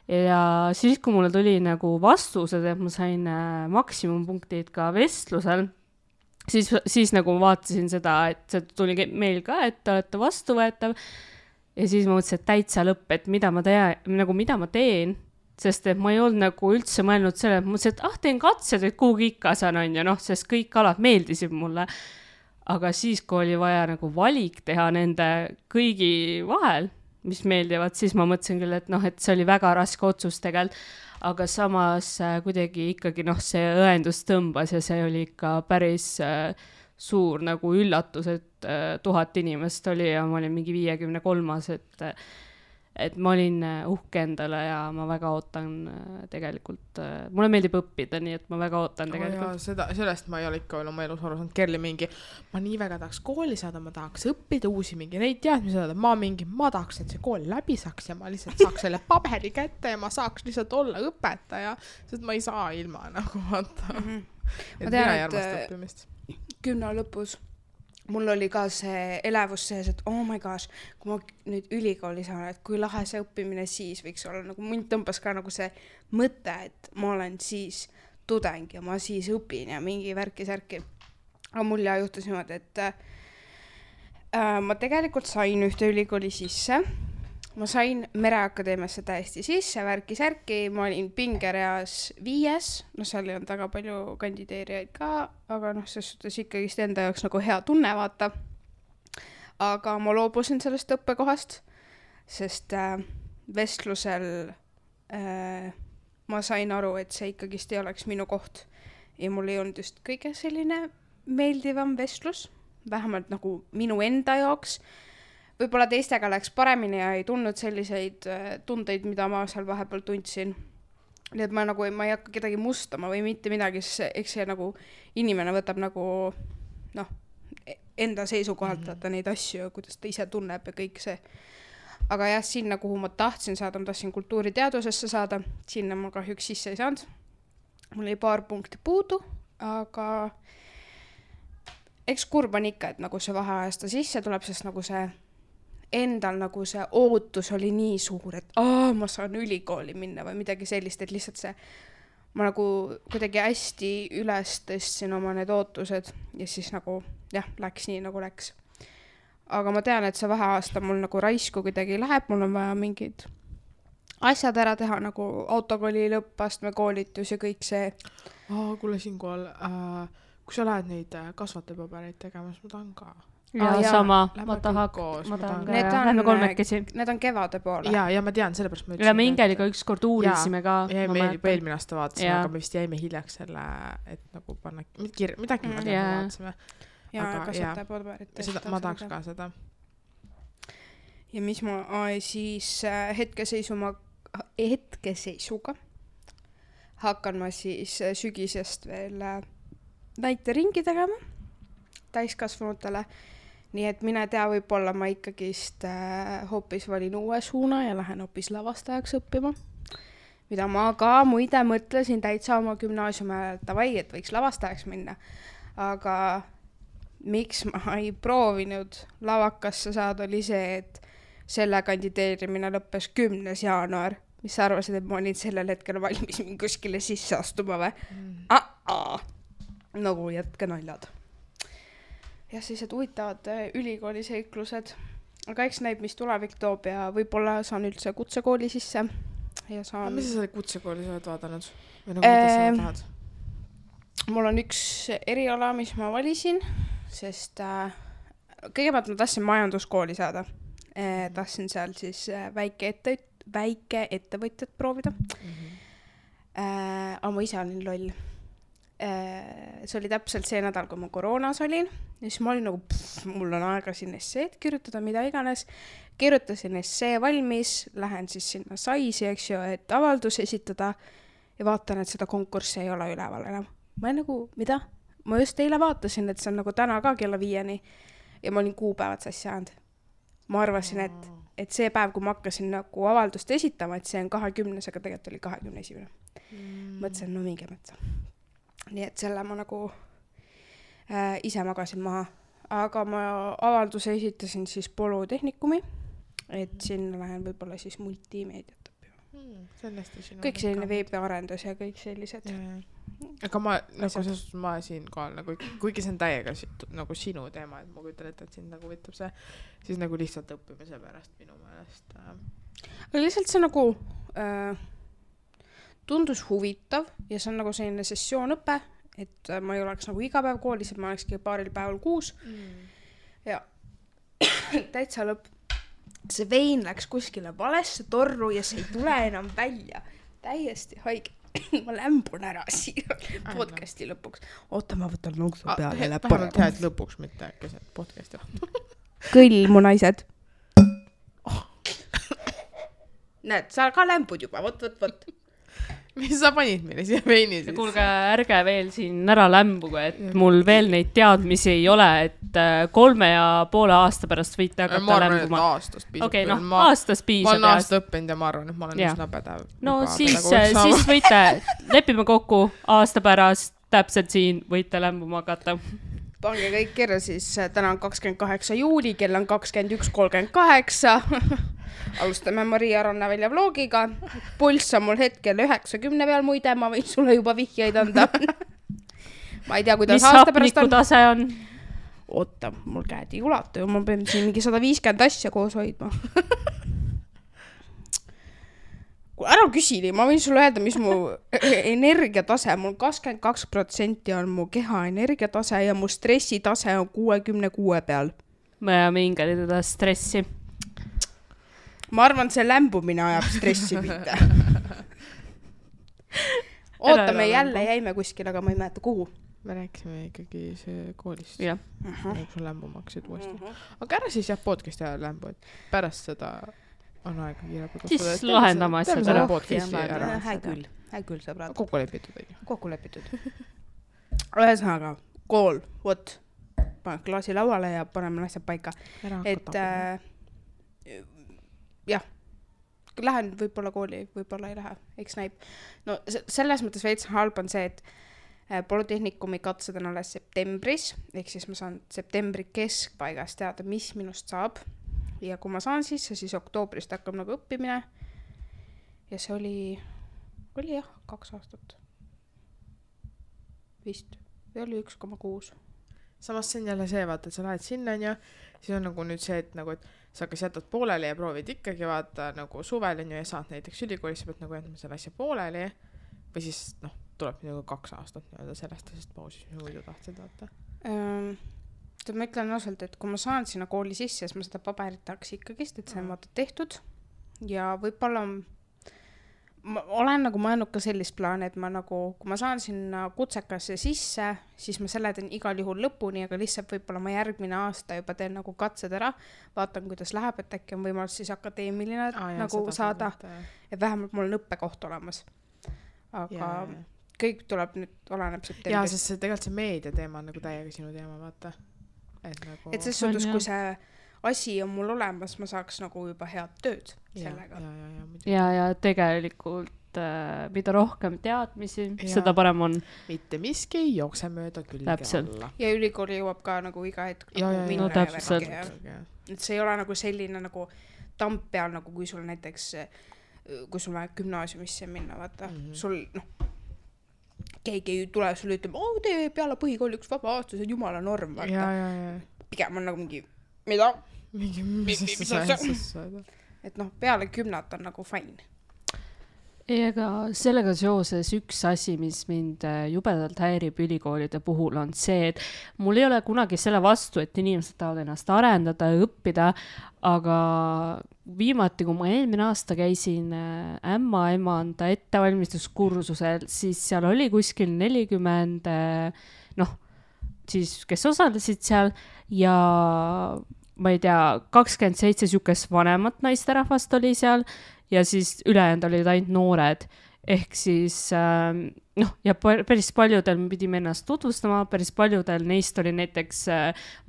Ja siis, kui mulle tuli nagu vastused, et ma sain maksimumpunktid ka vestlusel, siis nagu vaatasin seda, et see tuli meil ka, et te olete vastuvõetav ja siis ma mõtlesin, et täitsa lõpp, et mida ma teen, sest et ma ei olnud nagu üldse mõelnud selle, et mõtlesin, et teen katsed, et kuhugi ikka saan on ja sest kõik alad meeldisid mulle. Aga siis, kui oli vaja nagu valik teha nende kõigi vahel, mis meeldivad, siis ma mõtlesin küll, et see oli väga raske otsus tegelikult, aga samas kuidagi ikkagi see õendus tõmbas ja see oli ikka päris suur nagu üllatus, et 1000 inimest oli ja ma olin mingi 53, et ma olin uhke endale ja ma väga ootan tegelikult, mulle meeldib õppida, nii et ma väga ootan tegelikult. Sellest ma ei ole ikka veel oma elus aru saanud, Kerli mingi, ma nii väga tahaks kooli saada, ma tahaks õppida uusi mingi neid teadmisi saada, ma tahaks, et see kool läbi saaks ja ma lihtsalt saaks selle paberi kätte ja ma saaks lihtsalt olla õpetaja, sest ma ei saa ilma nagu vaata. Ma tean, et 10 lõpus mul oli ka see elevus sees, et oh my gosh, kui ma nüüd ülikooli saan, et kui lahe see õppimine siis võiks olla, nagu mind tõmbas ka nagu see mõte, et ma olen siis tudeng ja ma siis õpin ja mingi värki-särki. Aga mul juhtus niimoodi, et ma tegelikult sain ühte ülikooli sisse. Ma sain Mereakadeemiasse täiesti sisse, värki-särki, ma olin pingereas 5, seal ei olnud väga palju kandideerijaid ka, aga ses suhtes ikkagist enda jaoks nagu hea tunne vaata. Aga ma loobusin sellest õppekohast, sest vestlusel ma sain aru, et see ikkagist ei oleks minu koht ja mul ei olnud just kõige selline meeldivam vestlus, vähemalt nagu minu enda jaoks. Võib-olla teistega läks paremini ja ei tundnud selliseid tundeid, mida ma seal vahepeal tundsin. Nii et ma ei hakka kedagi mustama või mitte midagi, eks see nagu inimene võtab nagu enda seisukohalt vaata neid asju, kuidas ta ise tunneb ja kõik see. Aga jah, sinna, kuhu ma tahtsin saada, ma tahtsin kultuuriteadusesse saada, sinna ma kahjuks sisse ei saanud. Mul oli paar punkti puudu, aga eks kurb on ikka, et nagu see vaheajasta sisse tuleb, sest nagu see endal nagu see ootus oli nii suur, et ma saan ülikooli minna või midagi sellist, et lihtsalt see, ma nagu kuidagi hästi üles tõstsin oma need ootused ja siis nagu jah, läks nii nagu läks. Aga ma tean, et see vaheaasta mul nagu raisku kuidagi läheb, mul on vaja mingid asjad ära teha, nagu autokooli lõppastme koolitus ja kõik see. Kuule siinkohal, kui sa lähed neid kasvatajapabereid tegemas, ma tahan ka. Ja sama, ma tahan lähme kolmekesi. Need on kevade poole. Ja ma tean, sellepärast ma ütlesin. Ja me Ingeliga ükskord uurisime ka. Ja me eelmine aasta vaatasime, aga me vist jäime hiljaks selle, et nagu panna midagi me vaatasime. Ja kasvatajapaberit. Ma tahaks ka seda. Ja mis ma siis hetkeseisuga hakkan ma siis sügisest veel näiteringi tegema täiskasvanutele. Nii et mine tea, võib-olla ma ikkagist hoopis valin uue suuna ja lähen hoopis lavastajaks õppima. Mida ma ka muide mõtlesin täitsa oma gümnaasiumi ajal, et võiks lavastajaks minna. Aga miks ma ei proovinud lavakasse saada, oli see, et selle kandideerimine lõppes 10. jaanuar. Mis sa arvasid, et ma olin sellel hetkel valmis kuskile sisse astuma või? Nagu jätke naljad. Ja siis, et huvitavad ülikooli seiklused. Aga eks näib, mis tulevik toob ja võib-olla saan üldse kutsekooli sisse. Ja saan... Mis sa selle kutsekooli sa oled vaadanud? Või nagu mida sa tahad? Mul on üks eriala, mis ma valisin, sest kõigepealt ma tahtsin majanduskooli saada. tahtsin seal siis väike ettevõtjat proovida. Aga ma ise olin loll. See oli täpselt see nädal, kui ma koroonas olin. Ja siis ma olin nagu, mul on aega siin esseed kirjutada, mida iganes. Kirjutasin essee valmis, lähen siis sinna Saisi, eks ju, et avaldus esitada ja vaatan, et seda konkurssi ei ole üleval enam. Ma olen nagu, mida? Ma just eile vaatasin, et see on nagu täna ka kella 5 ja ma olin kuupäevad sassi ajanud. Ma arvasin, et see päev, kui ma hakkasin nagu avaldust esitama, et see on 20, aga tegelikult oli 21. Mõtlesin, no minge mõtsa. Nii et selle ma nagu ise magasin maha. Aga ma avalduse esitasin siis Polütehnikumi, et sinna lähen võib-olla siis multimeediat. Kõik selline veebiarendus ja kõik sellised. Aga ma, nagu ma siin kohal, nagu, kuigi see on täiega nagu sinu teema, et ma kujutan ette, et sind nagu võtab see, siis nagu lihtsalt õppimise pärast minu meelest. Aga lihtsalt see nagu tundus huvitav ja see on nagu selline sessioonõpe, et ma ei oleks nagu iga päev koolis, et ma olekski paaril päeval kuus. Ja täitsa lõpp. See vein läks kuskile valesse torru ja see ei tule enam välja. Täiesti haige. Ma lämbun ära siia podcasti lõpuks. Oota, ma võtan lonksu peale. Vähemalt hea, et lõpuks mitte keset podcasti. Kõll, mu naised. Näed, sa ka lämbud juba. Võt. Mis sa panid meile siia veini siis? Kuulge, ärge veel siin ära lämbuga, et mul veel neid teadmisi ei ole, et 3,5 aasta pärast võite hakata lämbuma. Ma arvan, et aastast piisab. Okei, aastast piisab. Ma olen aasta õppinud ja ma arvan, et ma olen üsna pädev. No siis võite, lepime kokku aasta pärast, täpselt siin võite lämbuma hakata. Pange kõik kirja siis, täna on 28 juuli, kell on 21:38. Alustame Maria Rannavälja vlogiga. Pulss on mul hetkel 90 peal, muide, ma võin sulle juba vihjeid anda. Ma ei tea, kuidas aasta pärast on. Mis hapniku tase on? Oota, mul käed ei ulatu ja ma pean siin mingi 150 asja koos hoidma. Ära küsili, ma võin sulle öelda, mis mu energiatase, mul 22% on mu keha energiatase ja mu stressitase on 66 peal. Ma mingi teda stressi. Ma arvan, see lämbumine ajab stressi mitte. Oota, me jälle jäime kuskil, aga ma ei mäleta kuhu. Me rääkisime ikkagi see koolist. Jah. Sul lämbuma hakkasid uuesti. Aga ära siis jah podcasti ajal lämbu, et pärast seda on aega kiirelt. Siis lahendama asjad ära. Hää küll, sõbrad. Kokku lepitud. Kokku lepitud. Ühesõnaga, kool, võt. Pane klaasi lauale ja paneme asjad paika. Et jah, lähen võib-olla kooli, võib-olla ei lähe, eks näib. No selles mõttes veits halb on see, et Polütehnikumi katsed on alles septembris, ehk siis ma saan septembri keskpaigast teada, mis minust saab. Ja kui ma saan siis oktoobrist hakkab nagu õppimine. Ja see oli jah, 2 aastat. Vist, või oli 1,6. Samas see on jälle see, vaata, et sa lähed sinna ja siis on nagu nüüd see, et nagu, et sa kas jätad pooleli ja proovid ikkagi vaata nagu suvel ja saad näiteks ülikoolis, sa pead nagu jätma selle asja pooleli või siis tuleb nagu 2 aastat sellest pausis, mis muidu tahtsid vaata. Ma ütlen ausalt, et kui ma saan sinna kooli sisse, siis ma seda paberit tahaks ikkagist, et see on vaata tehtud ja võib-olla ma olen nagu mõelnud ka sellist plaani, et ma nagu, kui ma saan sinna kutsekasse sisse, siis ma selle teen igal juhul lõpuni, aga lihtsalt võib-olla ma järgmine aasta juba teen nagu katsed ära, vaatan, kuidas läheb, et äkki on võimalus siis akadeemiline nagu saada, et vähemalt mul on õppekoht olemas. Aga kõik tuleb nüüd, oleneb septembrist. Jaa, sest see tegelikult see meedia teema on nagu täiega sinu teema, vaata. Et ses suhtes, kui see asi on mul olemas, ma saaks nagu juba head tööd sellega. Ja tegelikult mida rohkem teadmisi, seda parem on. Mitte miski ei jookse mööda külge alla. Ja ülikooli jõuab ka nagu iga hetk no täpselt. Et see ei ole nagu selline nagu tamp peal, nagu kui sul näiteks, kui sul vaja gümnaasiumisse minna, vaata, sul keegi ei tule sulle ütlema, tee peale põhikooli üks vaba aasta, see on jumala norm, vaata. Pigem on nagu mingi, mida? Mis et peale 10 on nagu fine. Ega sellega seoses üks asi, mis mind jubedalt häirib ülikoolide puhul, on see, et mul ei ole kunagi selle vastu, et inimesed tahavad ennast arendada ja õppida, aga viimati, kui ma eelmine aasta käisin ämmaemanda ettevalmistuskursusel, siis seal oli kuskil 40, siis kes osalesid seal ja ma ei tea, 27 sihukest vanemat naisterahvast oli seal ja siis ülejäänud olid ainult noored. Ehk siis, ja päris paljudel me pidime ennast tutvustama, päris paljudel neist oli näiteks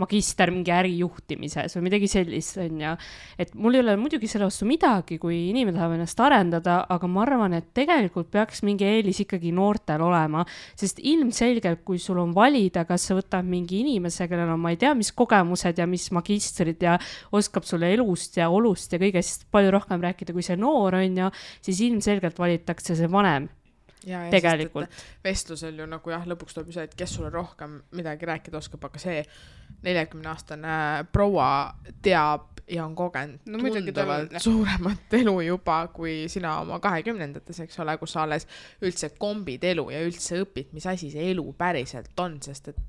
magister mingi ärijuhtimises või midagi sellist, on ja. Et mul ei ole muidugi selle vastu midagi, kui inimene tahab ennast arendada, aga ma arvan, et tegelikult peaks mingi eelis ikkagi noortel olema, sest ilmselgelt, kui sul on valida, kas sa võtad mingi inimese, kellel on, ma ei tea, mis kogemused ja mis magistrid ja oskab sulle elust ja olust ja kõigest palju rohkem rääkida, kui see noor on ja, siis ilmselgelt valitakse see vanem. Ja, tegelikult. Vestlusel ju nagu lõpuks tuleb see, et kes sulle rohkem midagi rääkida oskab, aga see 40-aastane proua teab ja on kogenud tunduvalt suuremat elu juba kui sina oma 20-ndates, eks ole, kus sa alles üldse kombid elu ja üldse õpid, mis asi see elu päriselt on, sest et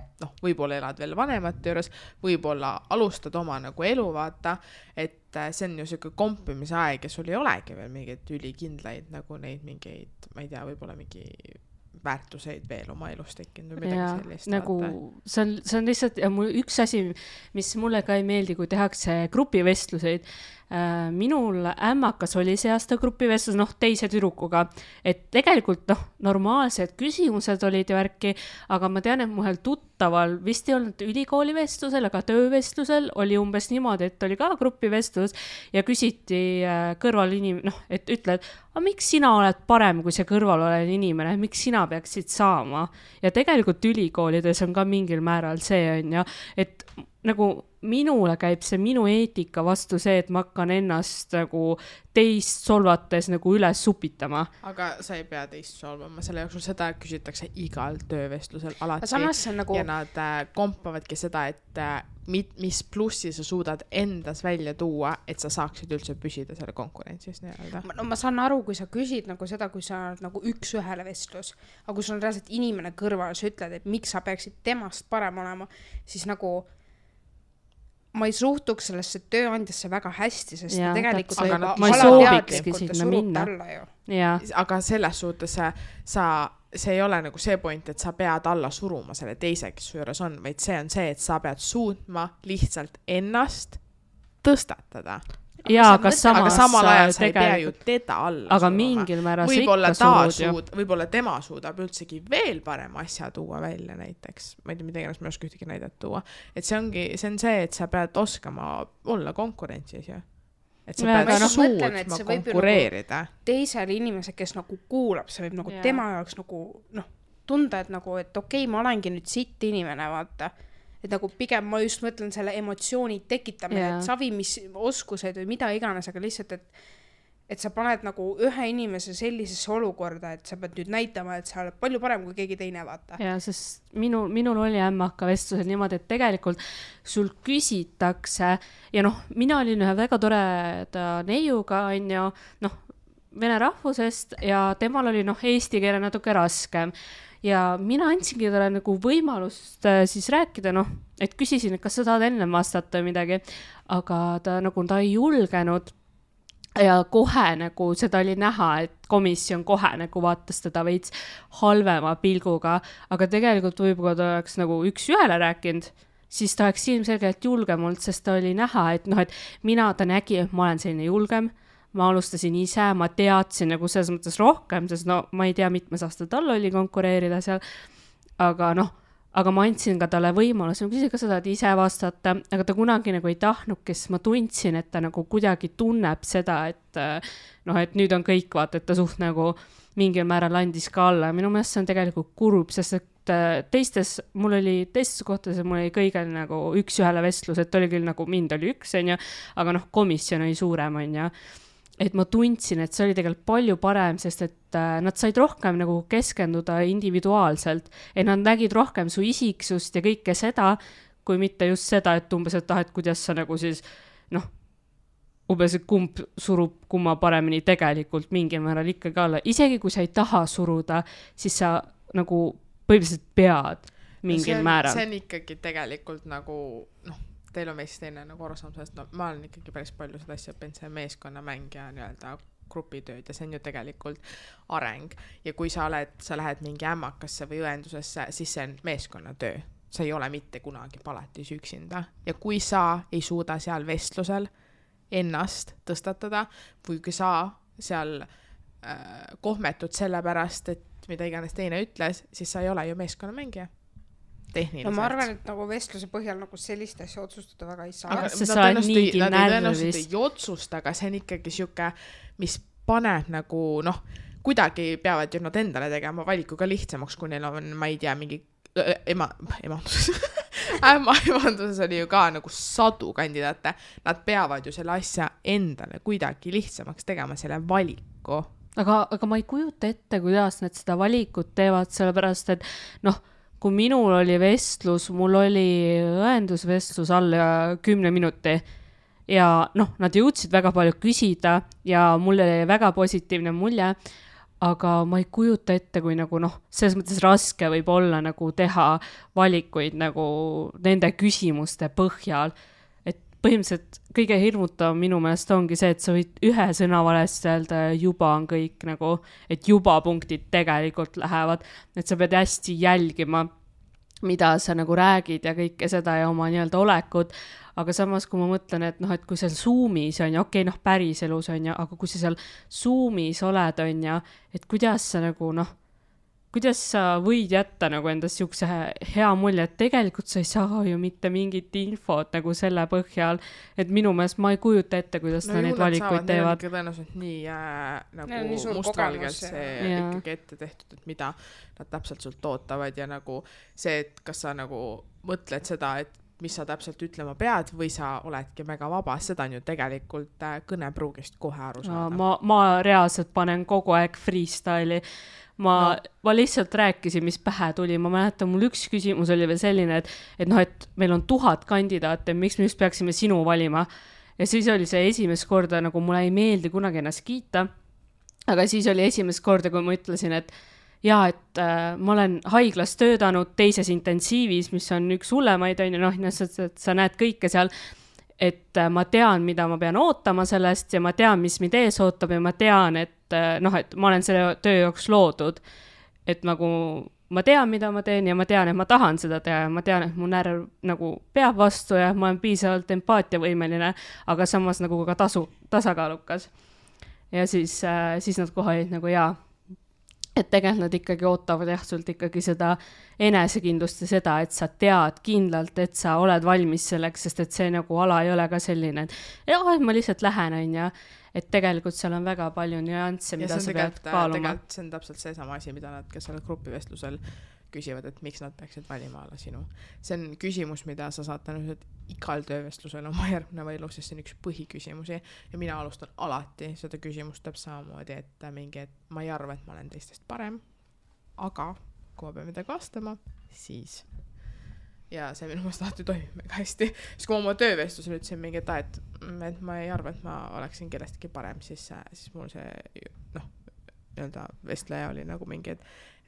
võib-olla elad veel vanemate juures, võib-olla alustad oma nagu elu, vaata, et see on ju selline kompimise aeg ja sul ei olegi veel mingeid ülikindlaid nagu neid mingeid, ma ei tea, võib-olla mingi väärtuseid veel oma elus tekkinud või midagi sellist. Nagu, see on lihtsalt, ja üks asi, mis mulle ka ei meeldi, kui tehakse grupivestluseid, minul ämmakas oli see aasta grupivestlus, teise tüdrukuga, et tegelikult normaalsed küsimused olid ja värki, aga ma tean, et muhel tuttaval vist ei olnud ülikooli vestlusel, aga töövestlusel oli umbes niimoodi, et oli ka grupivestlus ja küsiti kõrval et ütled, aga miks sina oled parem kui see kõrval olev inimene, miks sina peaksid saama? Ja tegelikult ülikoolides on ka mingil määral see on ja, et nagu minule käib see minu eetika vastu see, et ma hakkan ennast nagu teist solvates nagu üles supitama. Aga sa ei pea teist solvama, selle jooksul seda küsitakse igal töövestlusel alati. Nagu... Ja nad kompavadki seda, et mis plussi sa suudad endas välja tuua, et sa saaksid üldse püsida selle konkurentsis. Ma saan aru, kui sa küsid nagu seda, kui sa oled nagu üks-ühele vestlus, aga kui sul on reaalselt inimene kõrval, sa ütled, et miks sa peaksid temast parem olema, siis nagu ma ei suhtuks sellesse tööandjasse väga hästi, sest ja, tegelikult ma ei soovikski sinna minna. Aga selles suhtes see ei ole nagu see point, et sa pead alla suruma selle teise, kes su juures on, vaid see on see, et sa pead suutma lihtsalt ennast tõstatada. Jaa, aga samal ajal sa ei pea ju teda alla aga suruma. Mingil määral sa ikka surud. Võib-olla tema suudab üldsegi veel parem asja tuua välja näiteks. Ma ei tea, mida iganes ma ei oska ühtegi näidet tuua. Et see on see, et sa pead oskama olla konkurentsis ju. Et sa pead suutma konkureerida. Teisel inimese, kes nagu kuulab, see võib nagu tema jaoks nagu tunda, et nagu, et okei, ma olengi nüüd sitt inimene, vaata. Et nagu pigem ma just mõtlen selle emotsiooni tekitamine, et savi, mis oskused või mida iganes, aga lihtsalt, et sa paned nagu ühe inimese sellisesse olukorda, et sa pead nüüd näitama, et sa oled palju parem kui keegi teine, vaata. Ja, sest minul oli ämmaka vestlusel niimoodi, et tegelikult sul küsitakse ja mina olin ühe väga toreda neiuga, on ju, vene rahvusest ja temal oli eesti keele natuke raskem. Ja mina andsingi talle nagu võimalust siis rääkida, et küsisin, et kas sa tahad enne vastata või midagi, aga ta ei julgenud ja kohe nagu seda oli näha, et komisjon kohe nagu vaatas teda veits halvema pilguga, aga tegelikult võib-olla ta oleks nagu üks-ühele rääkinud, siis ta oleks ilmselgelt julgem olnud, sest ta oli näha, et ta nägi, et ma olen selline julgem, ma alustasin ise, ma teadsin nagu selles mõttes rohkem, sest ma ei tea, mitmes aasta tal oli konkureerida seal, aga ma andsin ka talle võimaluse, ma küsin, kas sa tahad ise vastata, aga ta kunagi nagu ei tahtnud, kes ma tundsin, et ta nagu kuidagi tunneb seda, et nüüd on kõik, vaata, et ta suht nagu mingil määral andis ka alla ja minu meelest see on tegelikult kurb, sest et teistes kohtades mul oli kõigil nagu üks-ühele vestlus, et oli küll nagu mind oli üks, on ju, aga komisjon oli suurem, on ju. Et ma tundsin, et see oli tegelikult palju parem, sest et nad said rohkem nagu keskenduda individuaalselt, et nad nägid rohkem su isiksust ja kõike seda, kui mitte just seda, et umbes, et kuidas sa nagu siis, umbes, et kumb surub kumma paremini tegelikult mingil määral ikkagi alla. Isegi kui sa ei taha suruda, siis sa nagu põhimõtteliselt pead mingil määral. See on ikkagi tegelikult nagu, noh, teil on meist teine nagu arusaam sellest, no ma olen ikkagi päris palju seda asja õppinud, see meeskonnamäng ja nii-öelda grupitööd ja see on ju tegelikult areng. Ja kui sa lähed mingi ämmakasse või õendusesse, siis see on meeskonnatöö. Sa ei ole mitte kunagi palatis üksinda. Ja kui sa ei suuda seal vestlusel ennast tõstatada või kui sa seal kohmetud selle pärast, et mida iganes teine ütles, siis sa ei ole ju meeskonnamängija. Tehniliselt. No ma arvan, et nagu vestluse põhjal nagu sellist asja otsustada väga ei saa. Aga nad tõenäoliselt ei otsusta, aga see on ikkagi siuke, mis paneb nagu, noh, kuidagi peavad ju nad endale tegema valikuga lihtsamaks, kui neil on, ma ei tea, mingi ämmaemanduses oli ju ka nagu 100 kandidaate. Nad peavad ju selle asja endale kuidagi lihtsamaks tegema selle valiku. Aga ma ei kujuta ette, kuidas nad seda valikut teevad, sellepärast, et noh, kui minul oli vestlus, mul oli õendusvestlus alla 10 minuti ja noh, nad jõudsid väga palju küsida ja mul oli väga positiivne mulje, aga ma ei kujuta ette, kui nagu noh, selles mõttes raske võib olla nagu teha valikuid nagu nende küsimuste põhjal. Et põhimõtteliselt kõige hirmutav minu meelest ongi see, et sa võid ühe sõna valesti öelda ja juba on kõik nagu, et juba punktid tegelikult lähevad, et sa pead hästi jälgima, mida sa nagu räägid ja kõike seda ja oma nii-öelda olekut, aga samas kui ma mõtlen, et noh, et kui seal Zoomis on ja okei, noh, päriselus on ja, aga kui sa seal Zoomis oled on ja, et kuidas sa nagu noh, kuidas sa võid jätta nagu endast siukse hea mulje, et tegelikult sa ei saa ju mitte mingit infot nagu selle põhjal, et minu meelest ma ei kujuta ette, kuidas no, neid valikuid teevad. Neil on tõenäoliselt nii nagu mustvalgelt see ikkagi ette tehtud, et mida nad täpselt sult ootavad ja nagu see, et kas sa nagu mõtled seda, et mis sa täpselt ütlema pead või sa oledki väga vaba, seda on ju tegelikult kõnepruugist kohe aru saada. Ma reaalselt panen kogu aeg freestyle'i. Ma lihtsalt rääkisin, mis pähe tuli. Ma mäletan, mul üks küsimus oli veel selline, et noh, et meil on 1000 kandidaate, miks me just peaksime sinu valima. Ja siis oli see esimest korda, nagu mulle ei meeldi kunagi ennast kiita, aga siis oli esimest korda, kui ma ütlesin, et jaa, et ma olen haiglas töötanud teises intensiivis, mis on üks hullemaid, on ju, noh, et sa näed kõike seal, et ma tean, mida ma pean ootama sellest ja ma tean, mis mind ees ootab ja ma tean, et noh, et ma olen selle töö jooksul loodud, et nagu ma tean, mida ma teen ja ma tean, et ma tahan seda teha ja ma tean, et mu närv nagu peab vastu ja ma olen piisavalt empaatiavõimeline, aga samas nagu ka tasakaalukas. Ja siis nad kohe olid nagu jaa, et tegelikult nad ikkagi ootavad jah, sult ikkagi seda enesekindlust ja seda, et sa tead kindlalt, et sa oled valmis selleks, sest et see nagu ala ei ole ka selline, et ma lihtsalt lähen on ja et tegelikult seal on väga palju nüansse, mida sa pead kaaluma. Tegelikult see on täpselt see sama asi, mida nad, kes seal grupivestlusel küsivad, et miks nad peaksid valima alla sinu. See on küsimus, mida sa saad tõenäoliselt igal töövestlusel oma järgneva elus, sest see on üks põhiküsimusi ja mina alustan alati seda küsimust täpselt samamoodi, et mingi, et ma ei arva, et ma olen teistest parem, aga kui ma pean midagi vastama, siis ja see minu meelest alati toimib väga hästi, sest kui ma oma töövestlusel ütlesin mingi, et ma ei arva, et ma oleksin kellestki parem, siis mul see noh, nii-öelda vestleja oli nagu mingi,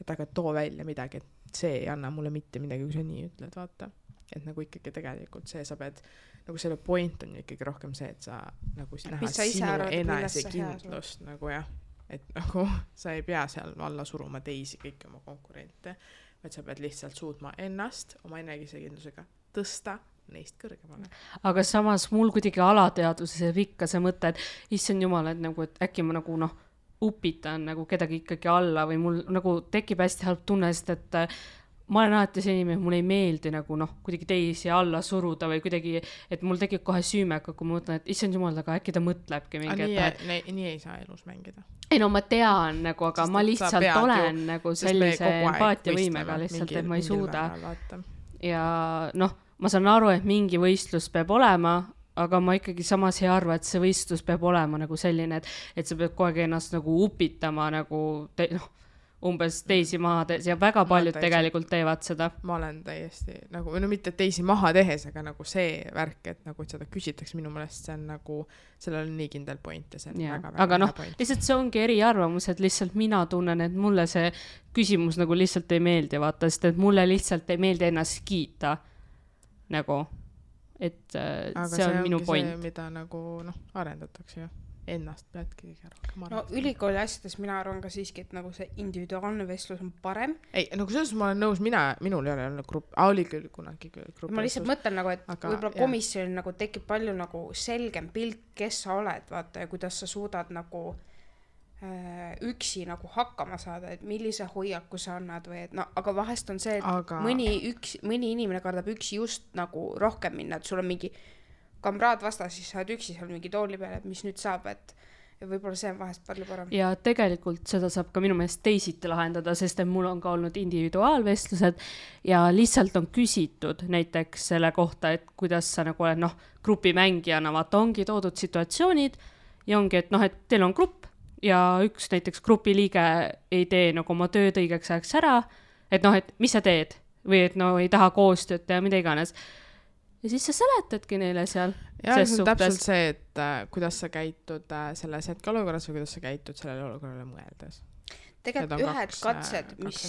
et aga too välja midagi, et see ei anna mulle mitte midagi, kui sa nii ütled, vaata. Et nagu ikkagi tegelikult see sa pead, nagu selle point on ikkagi rohkem see, et sa nagu näha sinu enesekindlust nagu jah, et nagu sa ei pea seal alla suruma teisi kõiki oma konkurente, vaid sa pead lihtsalt suutma ennast oma enesekindlusega tõsta neist kõrgemale. Aga samas mul kuidagi alateaduses ikka see mõte, et issand jumal, et nagu, et äkki ma nagu noh, upitan nagu kedagi ikkagi alla või mul nagu tekib hästi halb tunne, sest et ma olen alati see inimene, mul ei meeldi nagu noh, kuidagi teisi alla suruda või kuidagi, et mul tekib kohe süümeka, kui ma mõtlen, et issand jumal, aga äkki ta mõtlebki mingi. Nii ei saa elus mängida. Ei no ma tean nagu, aga ma lihtsalt olen nagu sellise empaatiavõimega lihtsalt, et ma ei suuda. Ja noh, ma saan aru, et mingi võistlus peab olema, aga ma ikkagi samas ei arva, et see võistlus peab olema nagu selline, et sa pead kogu aeg ennast nagu upitama nagu noh, umbes teisi maha tehes ja väga paljud tegelikult teevad seda. Ma olen täiesti nagu, no mitte teisi maha tehes, aga nagu see värk, et nagu et seda küsitakse minu meelest, see on nagu, sellel on nii kindel point ja see on väga aga noh, lihtsalt see ongi eriarvamus, et lihtsalt mina tunnen, et mulle see küsimus nagu lihtsalt ei meeldi, vaata, sest et mulle lihtsalt ei meeldi ennast kiita nagu, et aga see on minu point. See, mida nagu noh, arendatakse ju. Ennast peadki kõige rohkem arvata. No ülikooli asjades mina arvan ka siiski, et nagu see individuaalne vestlus on parem. Ei, nagu selles ma olen nõus, minul ei ole olnud grupp, oli küll kunagi grupp. Ma lihtsalt mõtlen nagu, et aga, võib-olla komisjonil nagu tekib palju nagu selgem pilt, kes sa oled, vaata, ja kuidas sa suudad nagu üksi nagu hakkama saada, et millise hoiaku sa annad või et no, aga vahest on see, et mõni inimene kardab üksi just nagu rohkem minna, et sul on mingi kamraad vastas, siis sa oled üksi seal mingi tooli peal, et mis nüüd saab, et ja võib-olla see on vahest palju parem. Ja tegelikult seda saab ka minu meelest teisiti lahendada, sest et mul on ka olnud individuaalvestlused ja lihtsalt on küsitud näiteks selle kohta, et kuidas sa nagu oled, noh, grupimängijana, vaata, ongi toodud situatsioonid ja ongi, et noh, et teil on grupp ja üks näiteks grupiliige ei tee nagu oma tööd õigeks ajaks ära, et noh, et mis sa teed või et no ei taha koostööd teha, mida iganes. Ja siis sa seletadki neile seal. Ja see on täpselt see, et kuidas sa käitud selles hetkeolukorras või kuidas sa käitud sellele olukorrale mõeldes. Tegelikult ühed katsed, mis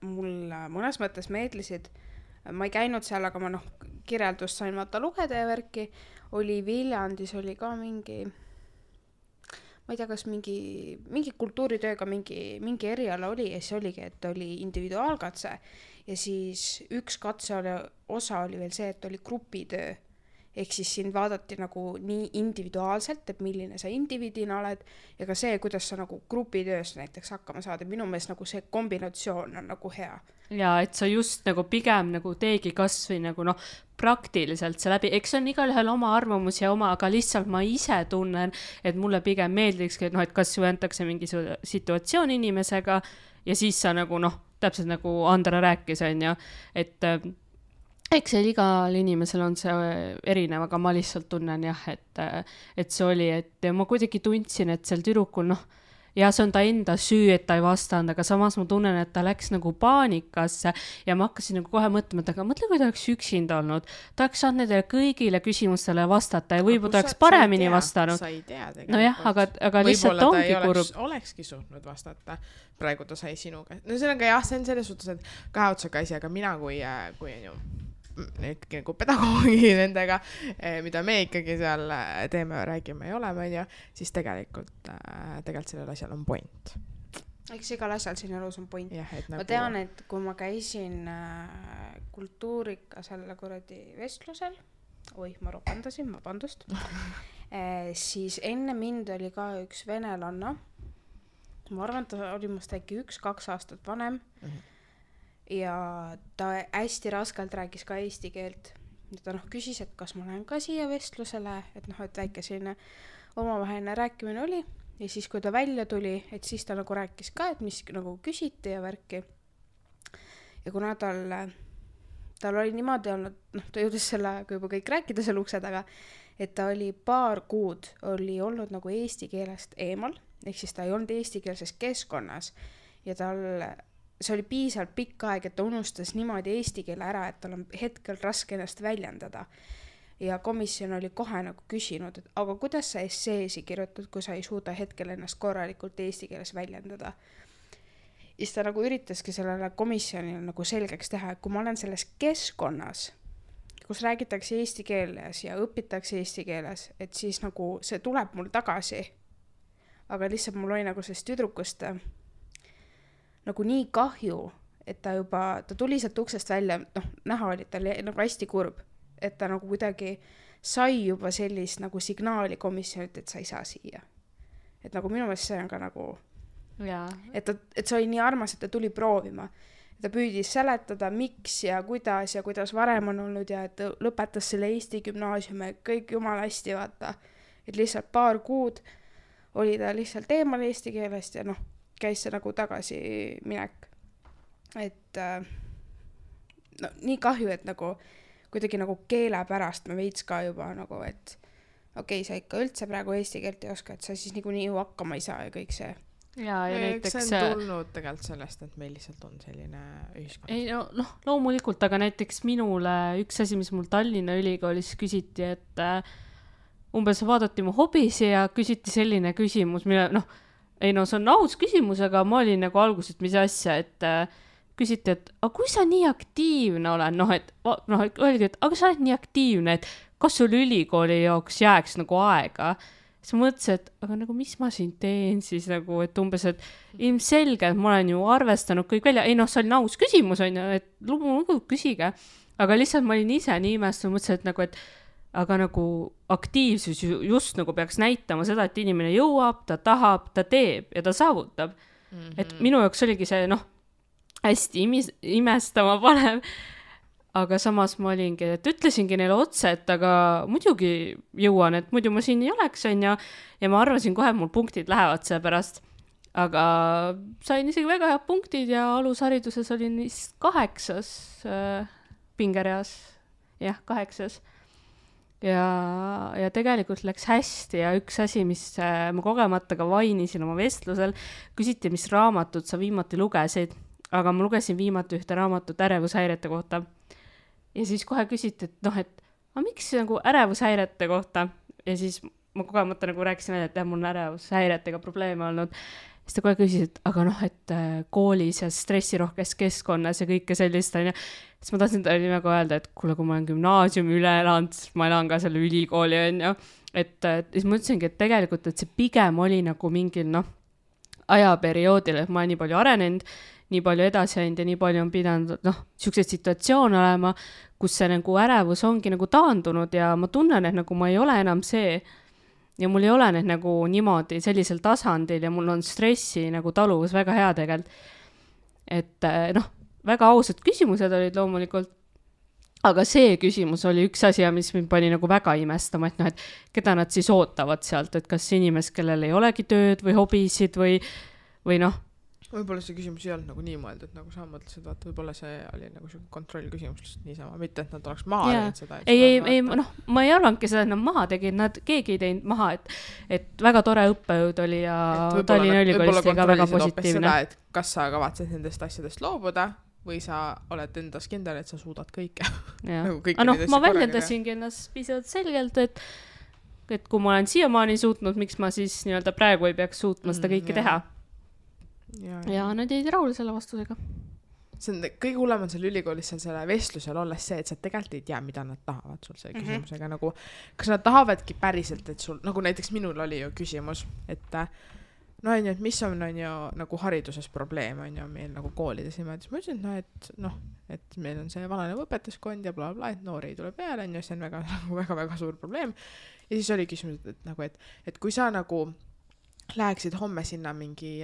mul mõnes mõttes meeldisid, ma ei käinud seal, aga ma kirjeldust sain vaata lugeda ja värki, oli Viljandis oli ka mingi, ma ei tea, kas mingi kultuuritööga mingi eriala oli ja siis oligi, et oli individuaalkatse ja siis üks osa oli veel see, et oli grupitöö. Ehk siis siin vaadati nagu nii individuaalselt, et milline sa indiviidina oled ja ka see, kuidas sa nagu grupitöös näiteks hakkama saada. Minu meelest nagu see kombinatsioon on nagu hea. Ja et sa just nagu pigem nagu teegi kas või nagu praktiliselt see läbi, eks on igalühel oma arvamus ja oma, aga lihtsalt ma ise tunnen, et mulle pigem meeldikski, et et kas ju antakse mingi situatsioon inimesega ja siis sa nagu täpselt nagu Andra rääkis, on ju, et eks see igal inimesel on see erinev, aga ma lihtsalt tunnen jah, et see oli, et ma kuidagi tundsin, et seal tüdrukul ja see on ta enda süü, et ta ei vastanud, aga samas ma tunnen, et ta läks nagu paanikasse ja ma hakkasin nagu kohe mõtlema, et aga mõtle, kui ta oleks üksinda olnud. Ta oleks saanud nendele kõigile küsimustele vastata ja võib-olla ta oleks paremini vastanud. Sa ei tea tegelikult. Nojah, aga lihtsalt ongi kurb. Olekski suutnud vastata. Praegu ta sai sinuga. No see on ka jah, see on selles suhtes, et kahe otsaga asi, aga mina kui on ju nagu pedagoogi nendega, mida me ikkagi seal teeme ja räägime ja oleme, siis tegelikult sellel asjal on point. Eks igal asjal siin elus on point. Ja, ma tean, et kui ma käisin kultuurika selle kuradi vestlusel, ma ropandasin, vabandust, siis enne mind oli ka üks venelanna. Ma arvan, et ta oli must äkki 1-2 aastat vanem. Ja ta hästi raskelt rääkis ka eesti keelt. Ja ta küsis, et kas ma lähen ka siia vestlusele, et väike selline omavaheline rääkimine oli. Ja siis, kui ta välja tuli, et siis ta nagu rääkis ka, et mis nagu küsiti ja värki. Ja kuna tal oli niimoodi olnud, ta jõudis selle aega juba kõik rääkida seal ukse taga, et ta oli 2 kuud oli olnud nagu eesti keelest eemal, ehk siis ta ei olnud eestikeelses keskkonnas ja see oli piisavalt pikk aeg, et ta unustas niimoodi eesti keele ära, et tal on hetkel raske ennast väljendada. Ja komisjon oli kohe nagu küsinud, et aga kuidas sa esseesi kirjutad, kui sa ei suuda hetkel ennast korralikult eesti keeles väljendada. Ja siis ta nagu üritaski sellele komisjonile nagu selgeks teha, et kui ma olen selles keskkonnas, kus räägitakse eesti keeles ja õpitakse eesti keeles, et siis nagu see tuleb mul tagasi. Aga lihtsalt mul oli nagu sellest tüdrukust nagu nii kahju, et ta tuli sealt uksest välja, näha oli, et ta oli nagu hästi kurb, et ta nagu kuidagi sai juba sellist nagu signaali komisjonilt, et sa ei saa siia. Et nagu minu meelest see on ka nagu, et see oli nii armas, et ta tuli proovima. Ta püüdis seletada, miks ja kuidas varem on olnud ja et lõpetas selle Eesti gümnaasiumi, kõik jumala hästi vaata. Et lihtsalt 2 kuud oli ta lihtsalt eemal eesti keelest ja käis see nagu tagasi minek. Et nii kahju, et nagu kuidagi nagu keele pärast me veits ka juba nagu, et okei, sa ikka üldse praegu eesti keelt ei oska, et sa siis niikuinii ju hakkama ei saa ja kõik see. ja näiteks see on tulnud tegelikult sellest, et meil lihtsalt on selline ühiskond. Ei, noh, loomulikult, aga näiteks minule üks asi, mis mul Tallinna Ülikoolis küsiti, et umbes vaadati mu hobisi ja küsiti selline küsimus, mille, see on aus küsimus, aga ma olin nagu alguses, et mis asja, et küsiti, et aga kui sa nii aktiivne olen, öeldi, et aga sa oled nii aktiivne, et kas sul ülikooli jaoks jääks nagu aega? Siis ma mõtlesin, et aga nagu mis ma siin teen siis nagu, et umbes, et ilmselgelt ma olen ju arvestanud kõik välja, see oli aus küsimus, on ju, et loomulikult küsige, aga lihtsalt ma olin ise nii imestanud, mõtlesin, et nagu, et aga nagu aktiivsus just nagu peaks näitama seda, et inimene jõuab, ta tahab, ta teeb ja ta saavutab. Et minu jaoks oligi see, hästi imestama panev. Aga samas ma olingi, et ütlesingi neile otse, et aga muidugi jõuan, et muidu ma siin ei oleks, on ja ma arvasin kohe, et mul punktid lähevad selle pärast. Aga sain isegi väga head punktid ja alushariduses olin 8. pingereas. Jah, 8. Ja tegelikult läks hästi ja üks asi, mis ma kogemata ka vainisin oma vestlusel, küsiti, mis raamatut sa viimati lugesid, aga ma lugesin viimati ühte raamatut ärevushäirete kohta. Ja siis kohe küsiti, et miks nagu ärevushäirete kohta? Ja siis ma kogemata nagu rääkisin, et mul on ärevushäiretega probleeme olnud. Siis ta kohe küsis, et aga et koolis ja stressirohkes keskkonnas ja kõike sellist. Siis ma tahtsin talle nimega öelda, et kuule, kui ma olen gümnaasiumi üle elanud, siis ma elan ka selle ülikooli, on ju. Et siis ma ütlesingi, et tegelikult, et see pigem oli nagu mingil ajaperioodil, et ma olen nii palju arenenud, nii palju edasi ainult ja nii palju on pidanud, siukseid situatsioone olema, kus see nagu ärevus ongi nagu taandunud ja ma tunnen, et nagu ma ei ole enam see ja mul ei ole need nagu niimoodi sellisel tasandil ja mul on stressi nagu taluvus väga hea tegelikult. Et väga ausad küsimused olid loomulikult, aga see küsimus oli üks asi, mis mind pani nagu väga imestama, et keda nad siis ootavad sealt, et kas inimest, kellel ei olegi tööd või hobisid või võib-olla see küsimus ei olnud nagu nii mõeldud, nagu sa mõtlesid, vaata, võib-olla see oli nagu see kontrollküsimus lihtsalt niisama, mitte et nad oleks maha teinud seda. Ei, ma ei arvanudki seda, et nad maha tegid, keegi ei teinud maha, et väga tore õppejõud oli ja Tallinna Ülikoolis oli ka väga positiivne. Seda, et kas sa kavatsed nendest asjadest loobuda või sa oled endas kindel, et sa suudad kõike. Nagu ma väljendasingi ennast pisut selgelt, et kui ma olen siiamaani suutnud, miks ma siis nii-öelda praegu ei peaks suutma seda kõike teha. Ja nad jäid rahule selle vastusega. See on kõige hullem on selle ülikoolis selle vestlusel olles see, et sa tegelikult ei tea, mida nad tahavad sul selle küsimusega. Nagu, kas nad tahavadki päriselt, et sul, nagu näiteks minul oli ju küsimus, et et mis on ju nagu hariduses probleem on ju meil nagu koolides ja ma ütlesin, et meil on see vananev õpetajaskond ja blablabla, et noori ei tule peale, see on väga suur probleem. Ja siis oli küsimus, et kui sa nagu läheksid homme sinna mingi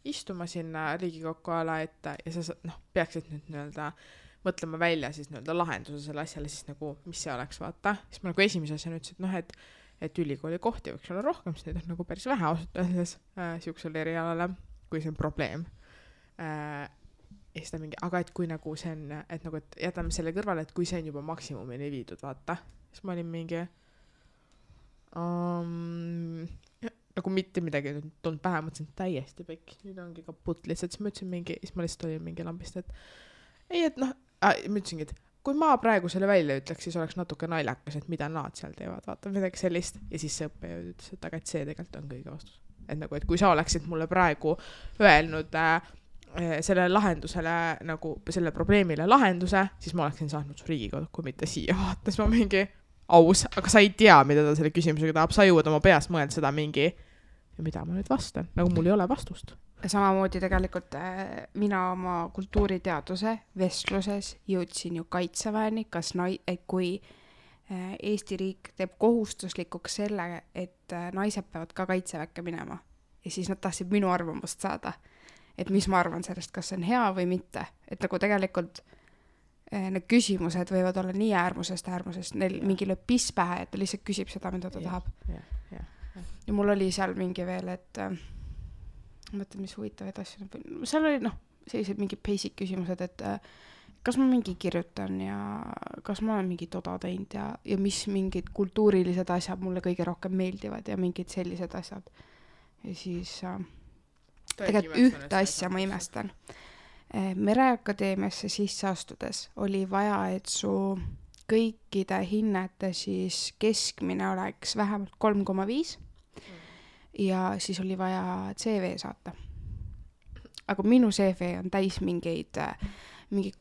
istuma sinna Riigikokku ala ette ja sa peaksid nüüd nii-öelda mõtlema välja siis nii-öelda lahenduse selle asjale, siis nagu, mis see oleks, vaata. Siis ma nagu esimese asjana ütlesin, et ülikooli kohti võiks olla rohkem, siis neid on nagu päris vähe ausalt öeldes siuksele erialale, kui see on probleem. Aga et kui nagu see on, et nagu, et jätame selle kõrvale, et kui see on juba maksimumini viidud, vaata. Siis ma olin mingi nagu mitte midagi tulnud pähe, mõtlesin täiesti pekk, nüüd ongi kaput lihtsalt, siis ma ütlesin siis ma lihtsalt olin mingi lambist, et ei, et ma ütlesingi, et kui ma praegu selle välja ütleks, siis oleks natuke naljakas, et mida nad seal teevad, vaata midagi sellist ja siis see õppejõud ütles, et aga et see tegelikult on kõige vastus, et nagu, et kui sa oleksid mulle praegu öelnud selle lahendusele nagu selle probleemile lahenduse, siis ma oleksin saanud su Riigikokku, mitte siia, vaata, siis ma mingi aus, aga sa ei tea, mida ta selle küsimusega tahab, sa jõuad oma peas mõelda seda mingi ja mida ma nüüd vastan, nagu mul ei ole vastust. Samamoodi tegelikult mina oma kultuuriteaduse vestluses jõudsin ju kaitseväeni, et kui Eesti riik teeb kohustuslikuks selle, et naised peavad ka kaitseväkke minema ja siis nad tahtsid minu arvamust saada, et mis ma arvan sellest, kas see on hea või mitte, et nagu tegelikult need küsimused võivad olla nii äärmusest, neil mingi lööb piss pähe, et ta lihtsalt küsib seda, mida ta tahab. Ja mul oli seal mingi veel, et mõtled, mis huvitavaid asju, seal oli sellised mingi basic küsimused, et kas ma mingi kirjutan ja kas ma olen mingi toda teinud ja mis mingid kultuurilised asjad mulle kõige rohkem meeldivad ja mingid sellised asjad. Ja siis tegelikult ühte asja ma imestan. Mereakadeemiasse sisse astudes oli vaja, et su kõikide hinnete siis keskmine oleks vähemalt 3,5 ja siis oli vaja CV saata. Aga minu CV on täis mingeid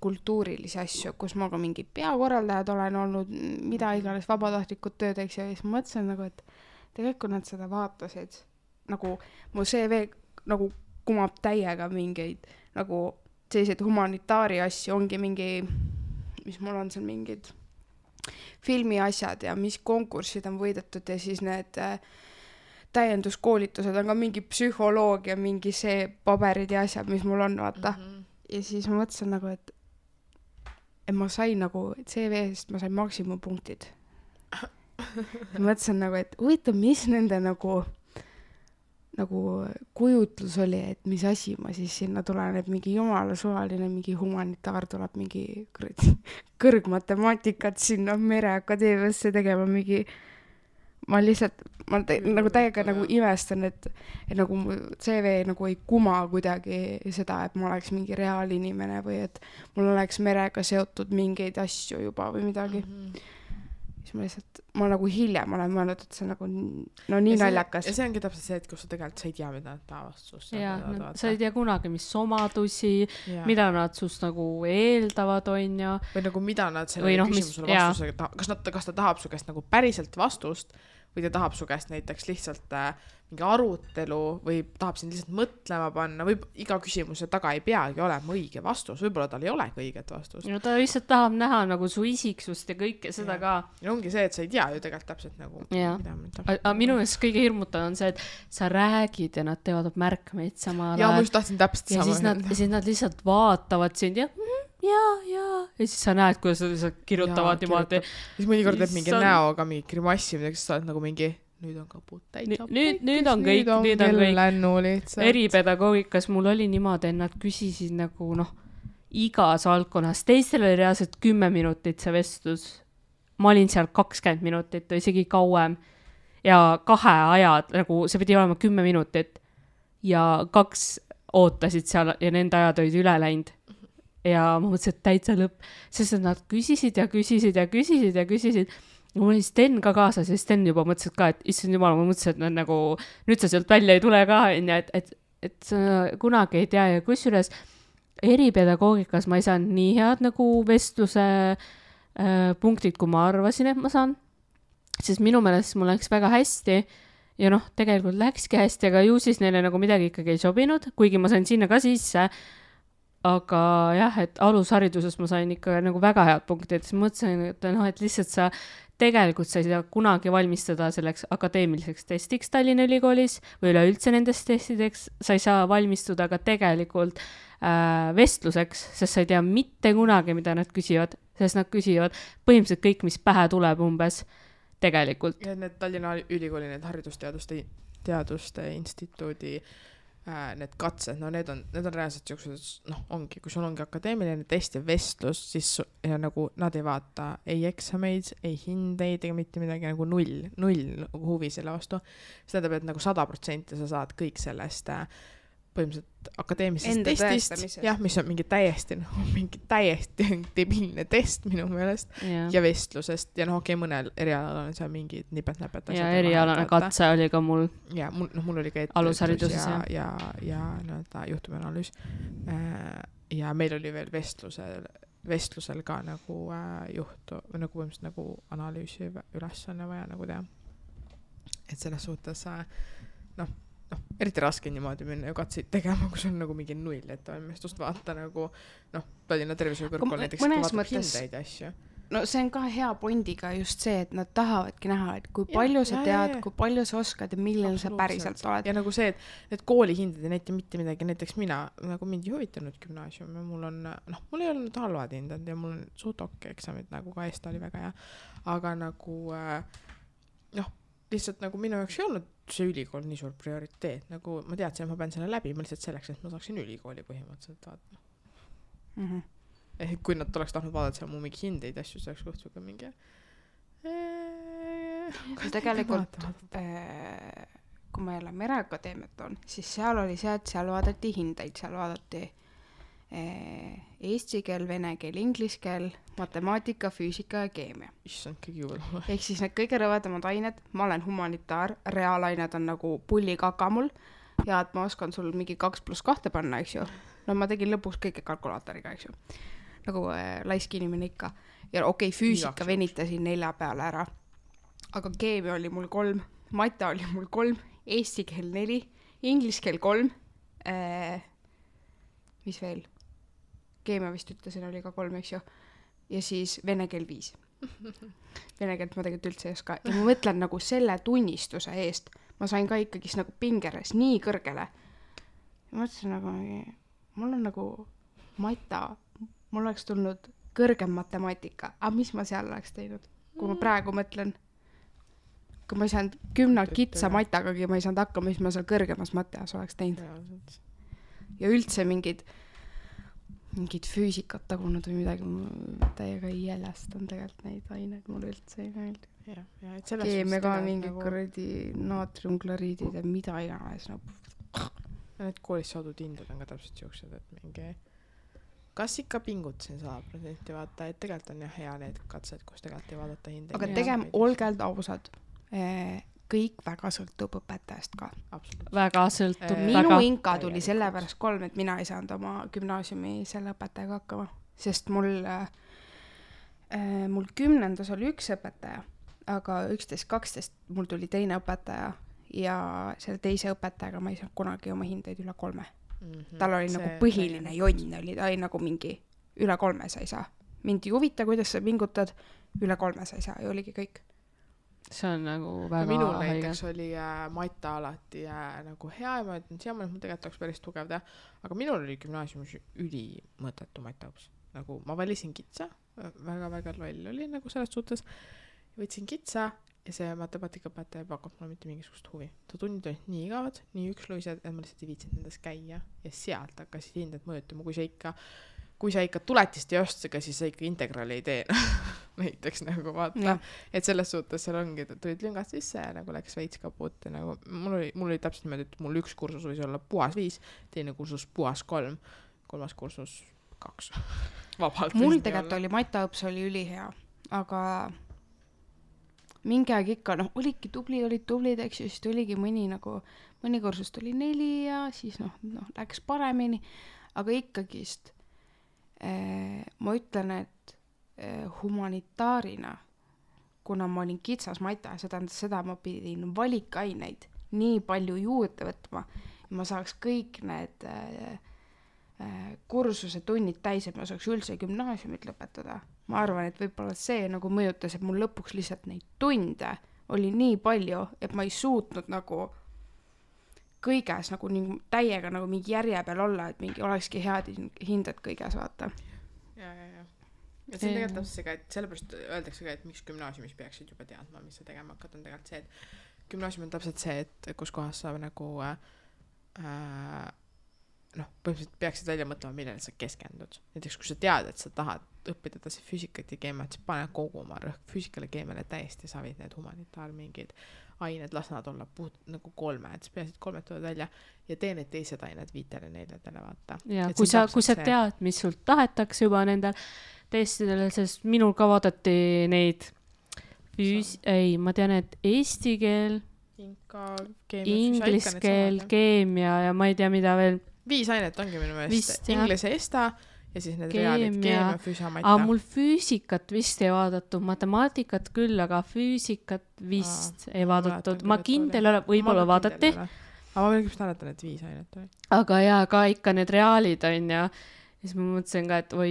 kultuurilisi asju, kus ma ka mingi peakorraldajad olen olnud, mida iganes vabatahtlikud töödeks ja siis mõtlesin nagu, et tegelikult nad seda vaatasid, nagu mu CV nagu kumab täiega mingeid nagu selliseid humanitaari asju, ongi mingi, mis mul on seal mingid filmi asjad ja mis konkursid on võidetud ja siis need täienduskoolitused on ka mingi psühholoogia, mingi see paberid ja asjad, mis mul on, vaata. Ja siis ma mõtlesin nagu, et ma sain nagu CV-st, ma sain maksimumpunktid. Ma mõtlesin nagu, et huvitav, mis nende nagu kujutlus oli, et mis asi ma siis sinna tulen, et mingi jumala suvaline, mingi humanitaar tuleb mingi kõrgmatemaatikat sinna Mereakadeemiasse tegema mingi, ma nagu täiega nagu imestan, et nagu mu CV nagu ei kuma kuidagi seda, et ma oleks mingi reaalinimene või et mul oleks merega seotud mingeid asju juba või midagi. Siis ma nagu hiljem olen mõelnud, et see nagu nii naljakas. Ja see ongi täpselt see, et kus sa tegelikult sa ei tea, mida nad tahavad sust. Sa ei tea kunagi, mis omadusi, mida nad sust nagu eeldavad, on ja. Või nagu mida nad selle küsimusele vastusega, kas ta tahab su käest nagu päriselt vastust või ta tahab su käest näiteks lihtsalt mingi arutelu või tahab sind lihtsalt mõtlema panna või iga küsimuse taga ei peagi olema õige vastus, võib-olla tal ei olegi õiget vastust. No ta lihtsalt tahab näha nagu su isiksust ja kõike seda ka. Ja ongi see, et sa ei tea ju tegelikult täpselt nagu aga minu eest kõige hirmutav on see, et sa räägid ja nad teevad märkmeid samal ajal. Ja ma just tahtsin täpselt sama. Ja siis nad lihtsalt vaatavad sind ja siis sa näed, kuidas sa kirjutavad niimoodi. Siis mõnikord teeb mingi näoga mingi grimassi, milleks sa oled nagu mingi nüüd on kaput täitsa. Nüüd on kõik. Eripedagoogikas mul oli niimoodi, et nad küsisid nagu igas valdkonnas. Teistel oli reaalselt 10 minutit see vestlus. Ma olin seal 20 minutit või isegi kauem. Ja 2 ajad, nagu see pidi olema 10 minutit. Ja 2 ootasid seal ja nende ajad olid üle läinud. Ja ma mõtlesin, et täitsa lõpp, sest nad küsisid ja küsisid. Mul oli Sten ka kaasas ja Sten juba mõtlesid ka, et issand jumal, ma mõtlesin, et nagu, nüüd sa sealt välja ei tule ka, et sa kunagi ei tea ja kusjuures eripedagoogikas ma ei saanud nii head nagu vestluse punktid, kui ma arvasin, et ma saan, sest minu meelest mul läks väga hästi ja tegelikult läkski hästi, aga ju siis neile nagu midagi ikkagi ei sobinud, kuigi ma sain sinna ka sisse. Aga jah, et alushariduses ma sain ikka nagu väga head punktid, siis mõtlesin, et lihtsalt sa tegelikult sa ei saa kunagi valmistada selleks akadeemiliseks testiks Tallinna Ülikoolis või üleüldse nendest testideks, sa ei saa valmistuda ka tegelikult vestluseks, sest sa ei tea mitte kunagi, mida nad küsivad, sest nad küsivad põhimõtteliselt kõik, mis pähe tuleb umbes tegelikult. Ja need Tallinna Ülikooli, need haridusteaduste instituudi need katsed, need on reaalselt siuksed, ongi, kui sul ongi akadeemiline test ja vestlus, siis ja nagu nad ei vaata ei eksameid, ei hindeid ega mitte midagi, nagu null huvi selle vastu. See tähendab, et nagu 100% sa saad kõik sellest põhimõtteliselt akadeemilisest testist, jah, mis on mingi täiesti debiilne test minu meelest ja vestlusest ja okei, mõnel erialal on seal mingid nipet-näpet ja erialane katse oli ka mul ja mul oli ka alushariduses ja juhtumianalüüs ja meil oli veel vestlusel ka nagu juhtu või nagu põhimõtteliselt nagu analüüsi ülesanne vaja nagu teha, et selles suhtes eriti raske niimoodi minna ju katseid tegema, kui sul on nagu mingi null ettevalmistust vaata nagu Tallinna Tervishoiukõrgkool näiteks vaatab hindeid ja asju. No see on ka hea pondiga just see, et nad tahavadki näha, et kui palju sa tead, kui palju sa oskad ja millel sa päriselt oled. Ja nagu see, et need koolihinded ei näita mitte midagi, näiteks mina, nagu mind ei huvitanud gümnaasium ja mul ei olnud halvad hinded ja mul on suht okei eksamid, nagu ka Eesti oli väga hea, aga nagu lihtsalt nagu minu jaoks ei olnud see ülikool nii suur prioriteet, nagu ma teadsin, et ma pean selle läbi, ma lihtsalt selleks, et ma saaksin ülikooli põhimõtteliselt vaata. Kui nad oleks tahtnud vaadata seal mu mingi hindeid asju, see oleks kohtuga mingi tegelikult kui ma jälle Mereakadeemiat on, siis seal oli see, et seal vaadati hindeid, seal vaadati eesti keel, vene keel, inglise keel, matemaatika, füüsika ja keemia. Issand, kõige juurde. Ehk siis need kõige rõvedamad ained, ma olen humanitaar, reaalained on nagu pullikaka mul ja et ma oskan sul mingi 2+2 panna, eks ju. No ma tegin lõpuks kõike kalkulaatoriga, eks ju. Nagu laisk inimene ikka. Ja okei, füüsika venitasin 4 peale ära. Aga keemia oli mul 3, mata oli mul 3, eesti keel 4, inglise keel 3, mis veel? Keemia vist ütlesin, oli ka 3, eks ju. Ja siis vene keel 5. Vene keelt ma tegelikult üldse ei oska. Ja ma mõtlen nagu selle tunnistuse eest. Ma sain ka ikkagi nagu pingeres nii kõrgele. Ja mõtlesin nagu, mul on nagu mata, mul oleks tulnud kõrgem matemaatika. Aga mis ma seal oleks teinud? Kui ma praegu mõtlen, kui ma ei saanud 10 kitsa matagagi, ma ei saanud hakkama, mis ma seal kõrgemas mateas oleks teinud. Ja üldse mingid füüsikat tagunud või midagi, ma täiega ei jälestan tegelikult neid aineid, mul üldse ei meeldi. Keemia ka mingid kuradi naatriumkloriidid ja mida iganes. Need koolis saadud hinded on ka täpselt siuksed, et mingi kas ikka pingutasin 100% vaata, et tegelikult on jah hea need katsed, kus tegelikult ei vaadata hindeid. Aga tegem olgelt ausad. Kõik väga sõltub õpetajast ka. Väga sõltub. Minu inka tuli sellepärast 3, et mina ei saanud oma gümnaasiumi selle õpetajaga hakkama. Sest mul 10. oli üks õpetaja, aga 11-12 mul tuli teine õpetaja ja selle teise õpetajaga ma ei saanud kunagi oma hindeid üle 3. Tal oli nagu põhiline jonn, oli ta oli nagu mingi üle 3 sa ei saa. Mind ei huvita, kuidas sa pingutad, üle 3 sa ei saa ja oligi kõik. See on nagu väga minul näiteks oli mata alati nagu hea ja ma ütlen, siiamaani, et mul tegelikult oleks päris tugev teha, aga minul oli gümnaasiumis ülimõttetu mataõps. Nagu ma valisin kitsa, väga-väga loll oli nagu selles suhtes, võtsin kitsa ja see matemaatikaõpetaja ei pakkunud mulle mitte mingisugust huvi. Ta tunnid olid nii igavad, nii üksluised, et ma lihtsalt ei viitsinud nendes käia ja sealt hakkasid hinded mõjutama, kui sa ikka tuletist ei ostega, siis sa ikka integraali ei tee. Näiteks nagu vaata, et selles suhtes seal ongi, tulid lüngad sisse ja nagu läks veits kaput ja nagu mul oli täpselt niimoodi, et mul üks kursus võis olla puhas 5, teine kursus puhas 3, 3. kursus 2. Vabalt. Mul tegelikult oli mataõps oli ülihea, aga mingi aeg ikka, olidki olid tublid, eks ju, siis tuligi mõni kursus tuli 4 ja siis läks paremini, aga ikkagist ma ütlen, et humanitaarina, kuna ma olin kitsas mata, seda ma pidin valikaineid nii palju juurde võtma, ja ma saaks kõik need kursuse tunnid täis, et ma saaks üldse gümnaasiumit lõpetada. Ma arvan, et võib-olla see nagu mõjutas, et mul lõpuks lihtsalt neid tunde oli nii palju, et ma ei suutnud nagu kõiges nagu täiega nagu mingi järje peal olla, et mingi olekski head hinded kõiges, vaata. Ja see on tegelikult see ka, et sellepärast öeldakse ka, et miks gümnaasiumis peaksid juba teadma, mis sa tegema hakkad, on tegelikult see, et gümnaasium on täpselt see, et kus kohas sa nagu põhimõtteliselt peaksid välja mõtlema, millele sa keskendud. Näiteks, kui sa tead, et sa tahad õppida edasi füüsikat ja keemiat, siis pane kogu oma rõhk füüsikale keemiale täiesti savid need humanitaar mingid ained, las nad olla nagu 3, et siis peasid 3 tulevad välja ja tee need teised ained 5-4 vaata. Ja kui sa tead, mis sult tahetakse juba nendel testidele, sest minul ka vaadati neid ma tean, et eesti keel, inglise keel, keemia ja ma ei tea, mida veel. 5 ainet ongi minu meelest. Inglise esta ja siis need reaalid, keemia, füüsiamata. Aga mul füüsikat vist ei vaadatud, matemaatikat küll, aga füüsikat vist ei vaadatud. Ma kindel ole, võib-olla vaadati. Aga ma veel küpst mäletan, et 5 ainet oli. Aga jaa, ka ikka need reaalid on ja siis ma mõtlesin ka, et oi,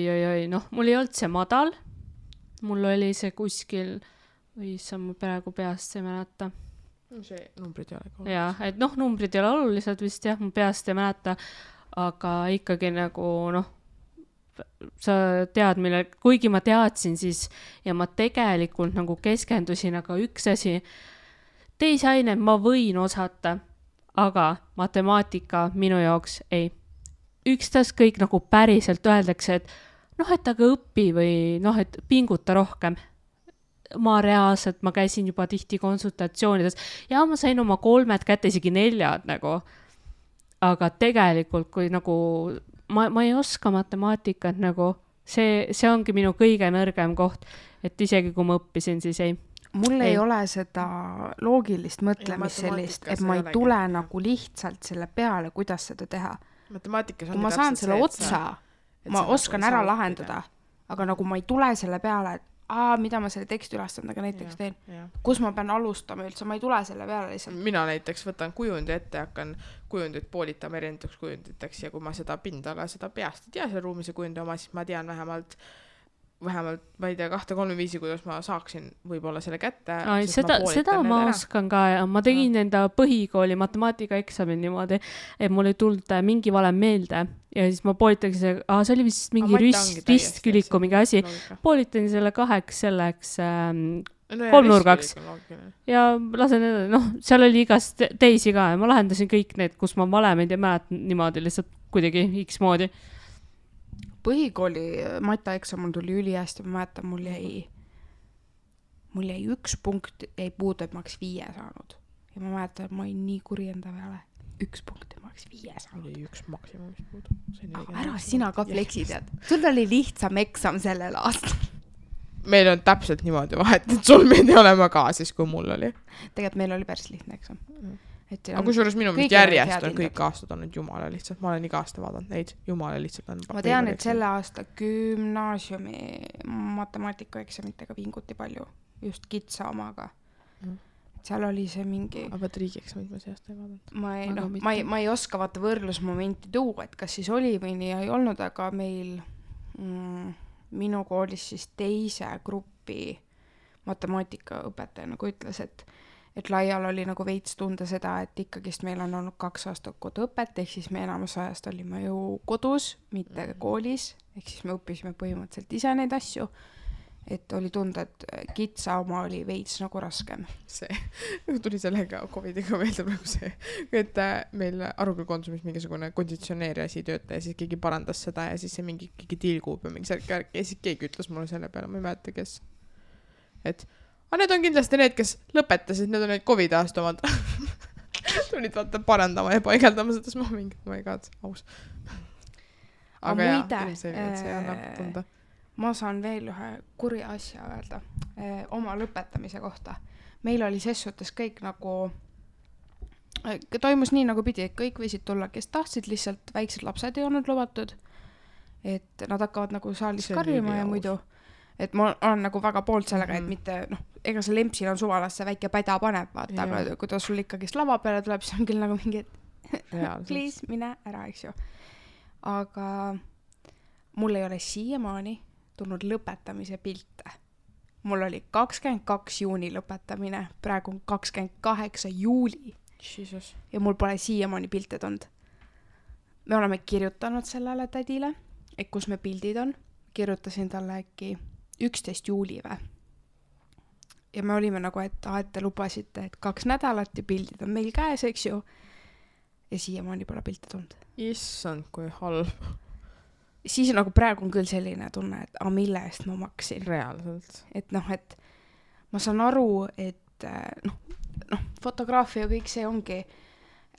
mul ei olnud see madal. Mul oli see kuskil, sa mul praegu peast ei mäleta. See numbrid ei ole ka olulised. Jaa, et numbrid ei ole olulised vist jah, mu peast ei mäleta, aga ikkagi nagu sa tead, kuigi ma teadsin siis ja ma tegelikult nagu keskendusin, aga üks asi, teisi aineid ma võin osata, aga matemaatika minu jaoks ei. Ükstas kõik nagu päriselt öeldakse, et et aga õpi või et pinguta rohkem. ma reaalselt, ma käisin juba tihti konsultatsioonides ja ma sain oma 3 kätte, isegi 4 nagu. Aga tegelikult, kui nagu ma ei oska matemaatikat nagu, see ongi minu kõige nõrgem koht, et isegi kui ma õppisin, siis ei. Mul ei ole seda loogilist mõtlemist sellist, et ma ei tule nagu lihtsalt selle peale, kuidas seda teha. Matemaatikas on kui ma saan selle otsa, ma oskan ära lahendada, aga nagu ma ei tule selle peale, et mida ma selle teksti ülesandaga näiteks teen. Kus ma pean alustama üldse, ma ei tule selle peale lihtsalt. Mina näiteks võtan kujundi ette ja hakkan kujundit poolitama erinevaks kujunditeks ja kui ma seda pindala, seda peast ei tea selle ruumise kujundi oma, siis ma tean vähemalt, ma ei tea, 2-3 viisi, kuidas ma saaksin võib-olla selle kätte. Seda ma oskan ka ja ma tegin enda põhikooli matemaatikaeksamil niimoodi, et mul ei tulnud mingi valem meelde ja siis ma poolitasin see oli vist mingi ristküliku mingi asi, poolitasin selle 2 selleks 3-nurgaks ja lasen edasi, seal oli igast teisi ka ja ma lahendasin kõik need, kus ma valemeid ei mäleta niimoodi lihtsalt kuidagi X moodi. Põhikooli mataeksamul tuli ülihästi, ma mäletan, mul jäi 1 punkt jäi puudu, et ma oleks 5 saanud. Ja ma mäletan, et ma olin nii kuri enda peale. 1 punkt, et ma oleks 5 saanud. Oli 1 maksimumist puudu. Ära sina ka fleksid, et sul oli lihtsam eksam sellel aastal. Meil on täpselt niimoodi vahet, et sul meid ei olema ka siis, kui mul oli. Tegelikult meil oli päris lihtne eksam. Aga kusjuures minu meelest järjest on kõik aastad olnud jumala lihtsalt. Ma olen iga aasta vaadanud neid. Jumala lihtsalt on. Ma tean, et selle aasta gümnaasiumi matemaatikaeksamitega vinguti palju. Just kitsa omaga. Seal oli see mingi... Aga riigieksamid ma see aasta ei vaadanud. Ma ei oska vaata võrdlusmomenti tuua, et kas siis oli või nii ei olnud, aga meil minu koolis siis teise grupi matemaatikaõpetaja nagu ütles, et laial oli nagu veits tunda seda, et ikkagist meil on olnud 2 aastat koduõpet, ehk siis me enamus ajast olime ju kodus, mitte koolis, ehk siis me õppisime põhimõtteliselt ise neid asju, et oli tunda, et kitsa oma oli veits nagu raskem. See tuli sellega COVIDiga meelde praegu see, et meil Aruküll konsumis mingisugune konditsioneeri asi tööta ja siis keegi parandas seda ja siis see mingi tilgub ja mingi särk ja siis keegi ütles mulle selle peale, ma ei mäleta, kes. Et need on kindlasti need, kes lõpetasid, need on need COVID aasta omad. Tulid vaata parandama ja paigeldama seda, siis ma mingi, ma ei kaad, aus. Aga see annab tunda. Ma saan veel ühe kuri asja öelda oma lõpetamise kohta. Meil oli ses suhtes kõik nagu, toimus nii nagu pidi, et kõik võisid tulla, kes tahtsid, lihtsalt väiksed lapsed ei olnud lubatud, et nad hakkavad nagu saalis karjuma ja muidu. Et ma olen nagu väga poolt sellega, et mitte, ega see lempsil on suvalas see väike päda paneb, vaata, aga kui ta sul ikkagist lava peale tuleb, siis on küll nagu mingi, please, mine ära, eks ju. Aga mul ei ole siiamaani tulnud lõpetamise pilte. Mul oli 22 juuni lõpetamine, praegu on 28 juuli. Jesus. Ja mul pole siiamaani pilte tulnud. Me oleme kirjutanud sellele tädile, et kus me pildid on. Kirjutasin talle äkki 11 juuli või. Ja me olime nagu, et te lubasite, et 2 nädalat ja pildid on meil käes, eks ju. Ja siiamaani pole pilte tulnud. Issand, kui halb. Siis nagu praegu on küll selline tunne, et mille eest ma maksin. Reaalselt. Et et ma saan aru, et fotograafia ja kõik see ongi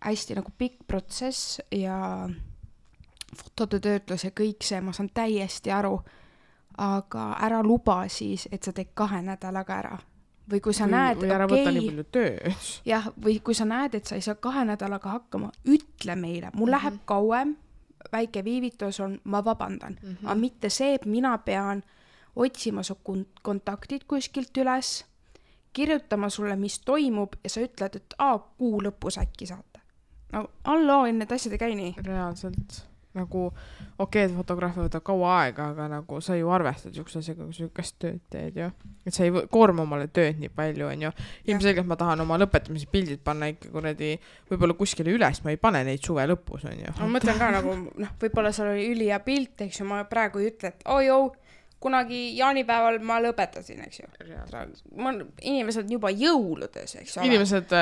hästi nagu pikk protsess ja fotode töötlus ja kõik see, ma saan täiesti aru, aga ära luba siis, et sa teed 2 nädalaga ära. Või kui sa näed, või ära võtta nii palju tööd. Jah, või kui sa näed, et sa ei saa 2 nädalaga hakkama, ütle meile, mul läheb kauem, väike viivitus on, ma vabandan. Aga mitte see, et mina pean otsima su kontaktid kuskilt üles, kirjutama sulle, mis toimub ja sa ütled, et kuu lõpus äkki saate. No, need asjad ei käi nii. Reaalselt. Nagu, et fotograafia võtab kaua aega, aga nagu sa ju arvestad siukesega, kui sa sükast tööd teed ju. Et sa ei koorma omale tööd nii palju, on ju. Ilmselgelt ma tahan oma lõpetamise pildid panna ikka kuradi võib-olla kuskile üles, ma ei pane neid suve lõpus, on ju. Ma mõtlen ka nagu, võib-olla seal oli ülija pilt, eks ju, ma praegu ei ütle, et kunagi jaanipäeval ma lõpetasin, eks ju. Inimesed juba jõuludes, eks ole. Inimesed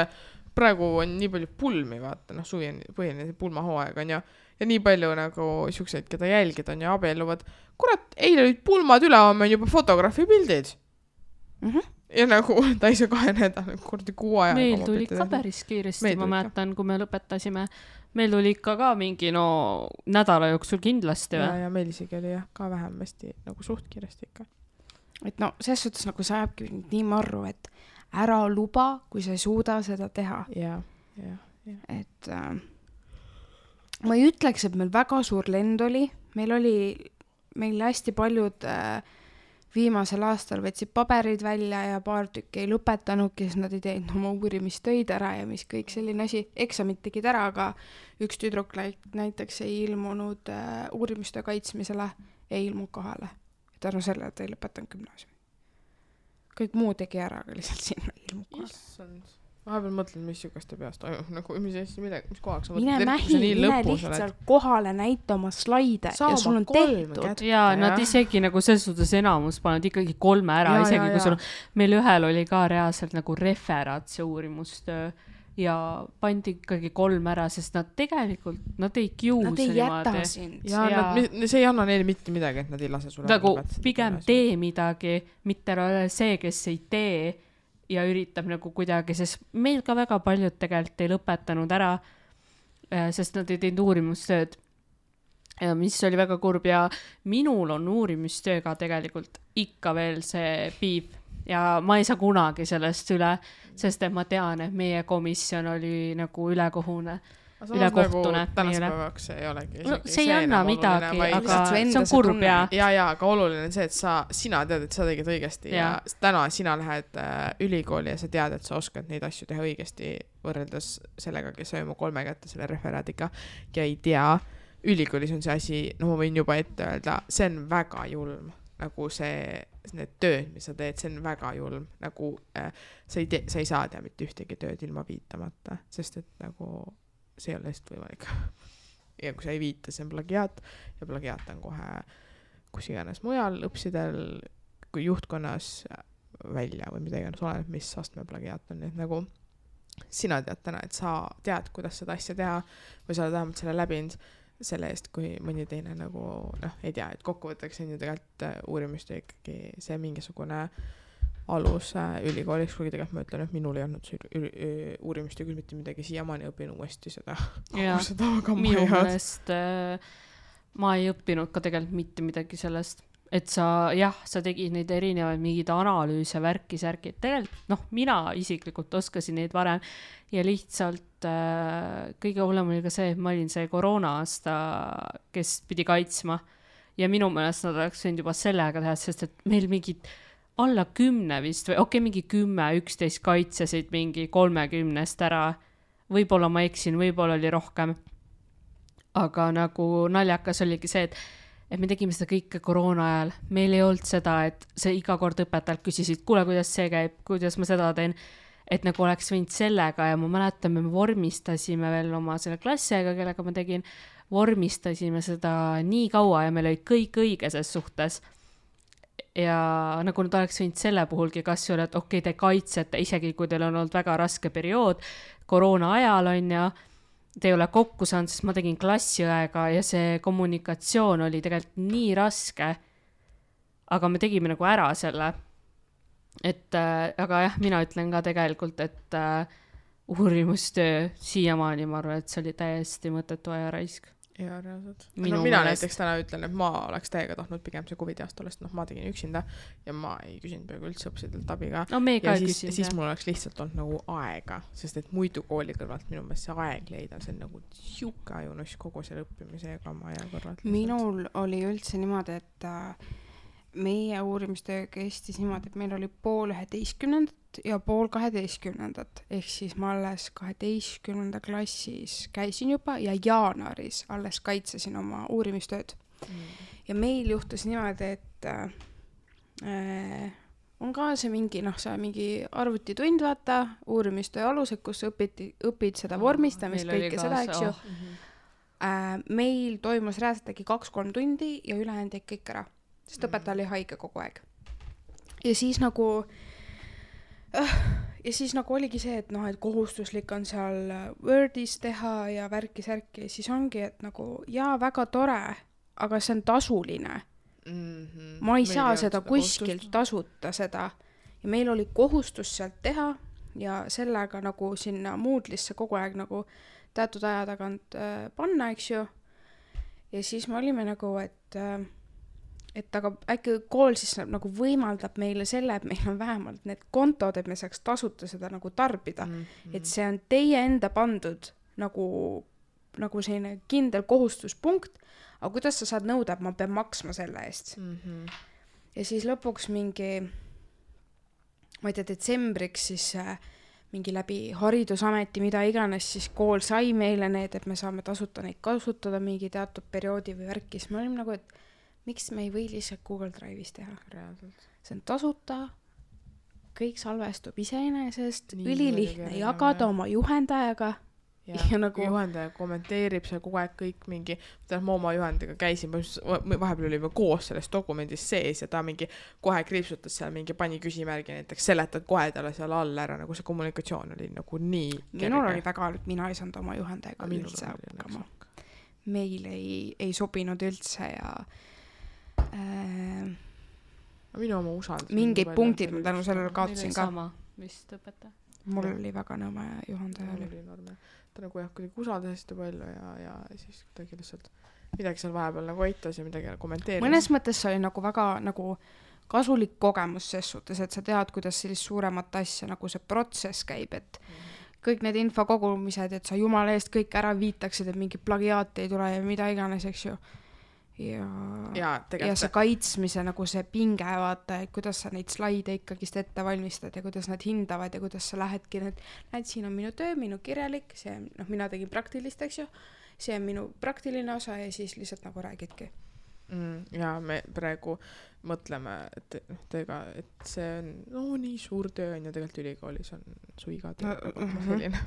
praegu on nii palju pulmi, vaata, suvi on põhine pulmahooaeg, on ju. Ja nii palju nagu siukseid, keda jälgid on ja abielluvad. Kurat, eile olid pulmad üle, on juba fotograafi pildid. ja nagu ta ei saa 2 nädala kordi 6 ajaga. Meil tuli ka päris kiiresti, ma mäletan, kui me lõpetasime. Meil tuli ikka ka mingi nädala jooksul kindlasti. Ja meil isegi oli ka vähemasti nagu suht kiiresti ikka. Et selles suhtes nagu sa ajabki nii marru, et ära luba, kui sa ei suuda seda teha. Ja. Et ma ei ütleks, et meil väga suur lend oli. Meil hästi paljud viimasel aastal võtsid paberid välja ja paar tükki ei lõpetanudki, sest nad ei teinud oma uurimistöid ära ja mis kõik selline asi. Eksamid tegid ära, aga üks tüdruk näiteks ei ilmunud uurimistöö kaitsmisele, ei ilmunud kohale. Tänu selle, et ei lõpetanud gümnaasiumi. Kõik muu tegi ära, aga lihtsalt siin ei ilmunud kohale. Issand. Vahepeal mõtled, mis sügaste peast toimub, nagu mis kohaks sa mine lihtsalt kohale näita oma slaide ja sul on tehtud. Ja nad isegi nagu selles suhtes enamus pannud ikkagi 3 ära, isegi kui sul meil ühel oli ka reaalselt nagu referaat see uurimustöö ja pandi ikkagi 3 ära, sest nad tegelikult, nad ei kiusa niimoodi. Nad ei jäta sind. Ja see ei anna neile mitte midagi, et nad ei lase sulle. Nagu pigem tee midagi, mitte ole see, kes ei tee ja üritab nagu kuidagi, sest meil ka väga paljud tegelikult ei lõpetanud ära, sest nad ei teinud uurimustööd, mis oli väga kurb ja minul on uurimustööga tegelikult ikka veel see piib ja ma ei saa kunagi sellest üle, sest et ma tean, et meie komisjon oli nagu ülekohtune. Nagu tänaspäevaks ei olegi see ei anna midagi, aga see on kurb ja aga oluline on see, et sina tead, et sa tegid õigesti ja täna sina lähed ülikooli ja sa tead, et sa oskad neid asju teha õigesti võrreldes sellega, kes sai oma 3 kätte selle referaadiga ja ei tea, ülikoolis on see asi, ma võin juba ette öelda, see on väga julm, nagu need tööd, mis sa teed, see on väga julm, nagu sa ei saa teha mitte ühtegi tööd ilma viitamata, sest et nagu see ei ole lihtsalt võimalik. Ja kui sa ei viita, see on plagiaat ja plagiaat on kohe kus iganes mujal õpsidel, kui juhtkonnas välja või mida iganes oleneb, mis astme plagiaat on. Et nagu sina tead täna, et sa tead, kuidas seda asja teha või sa oled vähemalt selle läbinud selle eest, kui mõni teine nagu, ei tea, et kokkuvõtteks on ju tegelikult uurimist ikkagi see mingisugune alus ülikoolis, kuigi tegelikult ma ütlen, et minul ei olnud uurimist ja küll mitte midagi, siiamaani õpin uuesti seda. Minu meelest ma ei õppinud ka tegelikult mitte midagi sellest, et sa tegid neid erinevaid mingid analüüse, värki-särki, tegelikult mina isiklikult oskasin neid varem ja lihtsalt kõige hullem oli ka see, et ma olin see koroona aasta, kes pidi kaitsma ja minu meelest nad oleks võinud juba sellega teha, sest et meil mingid alla 10 vist või mingi 10-11 kaitsesid mingi 30 ära. Võib-olla ma eksin, võib-olla oli rohkem. Aga nagu naljakas oligi see, et me tegime seda kõike koroona ajal. Meil ei olnud seda, et see iga kord õpetajalt küsisid, kuule, kuidas see käib, kuidas ma seda teen. Et nagu oleks võinud sellega ja ma mäletan, me vormistasime veel oma selle klassiga, kellega ma tegin, vormistasime seda nii kaua ja meil oli kõik õige ses suhtes. Ja nagu nad oleks võinud selle puhulgi kas ju, et te kaitsete, isegi kui teil on olnud väga raske periood, koroona ajal on ja te ei ole kokku saanud, sest ma tegin klassiõega ja see kommunikatsioon oli tegelikult nii raske, aga me tegime nagu ära selle. Aga mina ütlen ka tegelikult, et uurimustöö siiamaani ma arvan, et see oli täiesti mõttetu aja raisk. Ja reaalselt. Mina näiteks täna ütlen, et ma oleks täiega tahtnud pigem see COVID aasta olest, ma tegin üksinda ja ma ei küsinud peaaegu üldse õpsidelt abiga. Ja siis mul oleks lihtsalt olnud nagu aega, sest et muidu kooli kõrvalt minu meelest see aeg leida, see on nagu siuke ajunuss kogu selle õppimise ja kama aja kõrvalt. Minul oli üldse niimoodi, et meie uurimistöö kestis niimoodi, et meil oli 10:30 ja 10:30, ehk siis ma alles 12. klassis käisin juba ja jaanuaris alles kaitsesin oma uurimistööd. Ja meil juhtus niimoodi, et on ka see mingi, mingi arvutitund, vaata, uurimistöö alused, kus õpid seda vormistamist, kõike seda, eks ju. Meil toimus reaalselt äkki 2-3 tundi ja ülejäänud jäi kõik ära. Sest õpetaja oli haige kogu aeg. Ja siis nagu oligi see, et et kohustuslik on seal Wordis teha ja värki-särki ja siis ongi, et nagu väga tore, aga see on tasuline. Ma ei saa seda kuskilt tasuta seda ja meil oli kohustus sealt teha ja sellega nagu sinna Moodle'isse kogu aeg nagu teatud aja tagant panna, eks ju. Ja siis me olime nagu, et aga äkki kool siis nagu võimaldab meile selle, et meil on vähemalt need kontod, et me saaks tasuta seda nagu tarbida. Et see on teie enda pandud nagu selline kindel kohustuspunkt, aga kuidas sa saad nõuda, et ma pean maksma selle eest. Ja siis lõpuks mingi, ma ei tea, detsembriks siis mingi läbi haridusameti, mida iganes, siis kool sai meile need, et me saame tasuta neid kasutada mingi teatud perioodi või värkis. Me olime nagu, et miks me ei või lihtsalt Google Drive'is teha? Reaalselt. See on tasuta, kõik salvestub iseenesest, ülilihtne jagada oma juhendajaga. Ja nagu juhendaja kommenteerib seal kogu aeg kõik mingi, ma oma juhendajaga käisin, vahepeal olime koos selles dokumendis sees ja ta mingi kohe kriipsutas seal mingi pani küsimärgi, näiteks seletad kohe talle seal all ära, nagu see kommunikatsioon oli nagu nii kerge. Minul oli väga, et mina ei saanud oma juhendajaga üldse hakkama. Meil ei sobinud üldse ja minu oma usaldus. Mingid punktid ma tänu sellele kaotasin ka. Sama vist õpeta. Mul oli väga nõme juhendaja oli. Ta nagu jah, kuidagi usaldas hästi palju ja siis kuidagi lihtsalt midagi seal vahepeal nagu aitas ja midagi kommenteeris. Mõnes mõttes see oli nagu väga nagu kasulik kogemus ses suhtes, et sa tead, kuidas sellist suuremat asja nagu see protsess käib, et kõik need infokogumised, et sa jumala eest kõik ära viitaksid, et mingi plagiaat ei tule ja mida iganes, eks ju. Ja see kaitsmise nagu see pinge, vaata, et kuidas sa neid slaide ikkagist ette valmistad ja kuidas nad hindavad ja kuidas sa lähedki näed, siin on minu töö, minu kirjalik, see, mina tegin praktilist, eks ju, see on minu praktiline osa ja siis lihtsalt nagu räägidki. Ja me praegu mõtleme, et see on nii suur töö on ja tegelikult ülikoolis on su iga töö selline.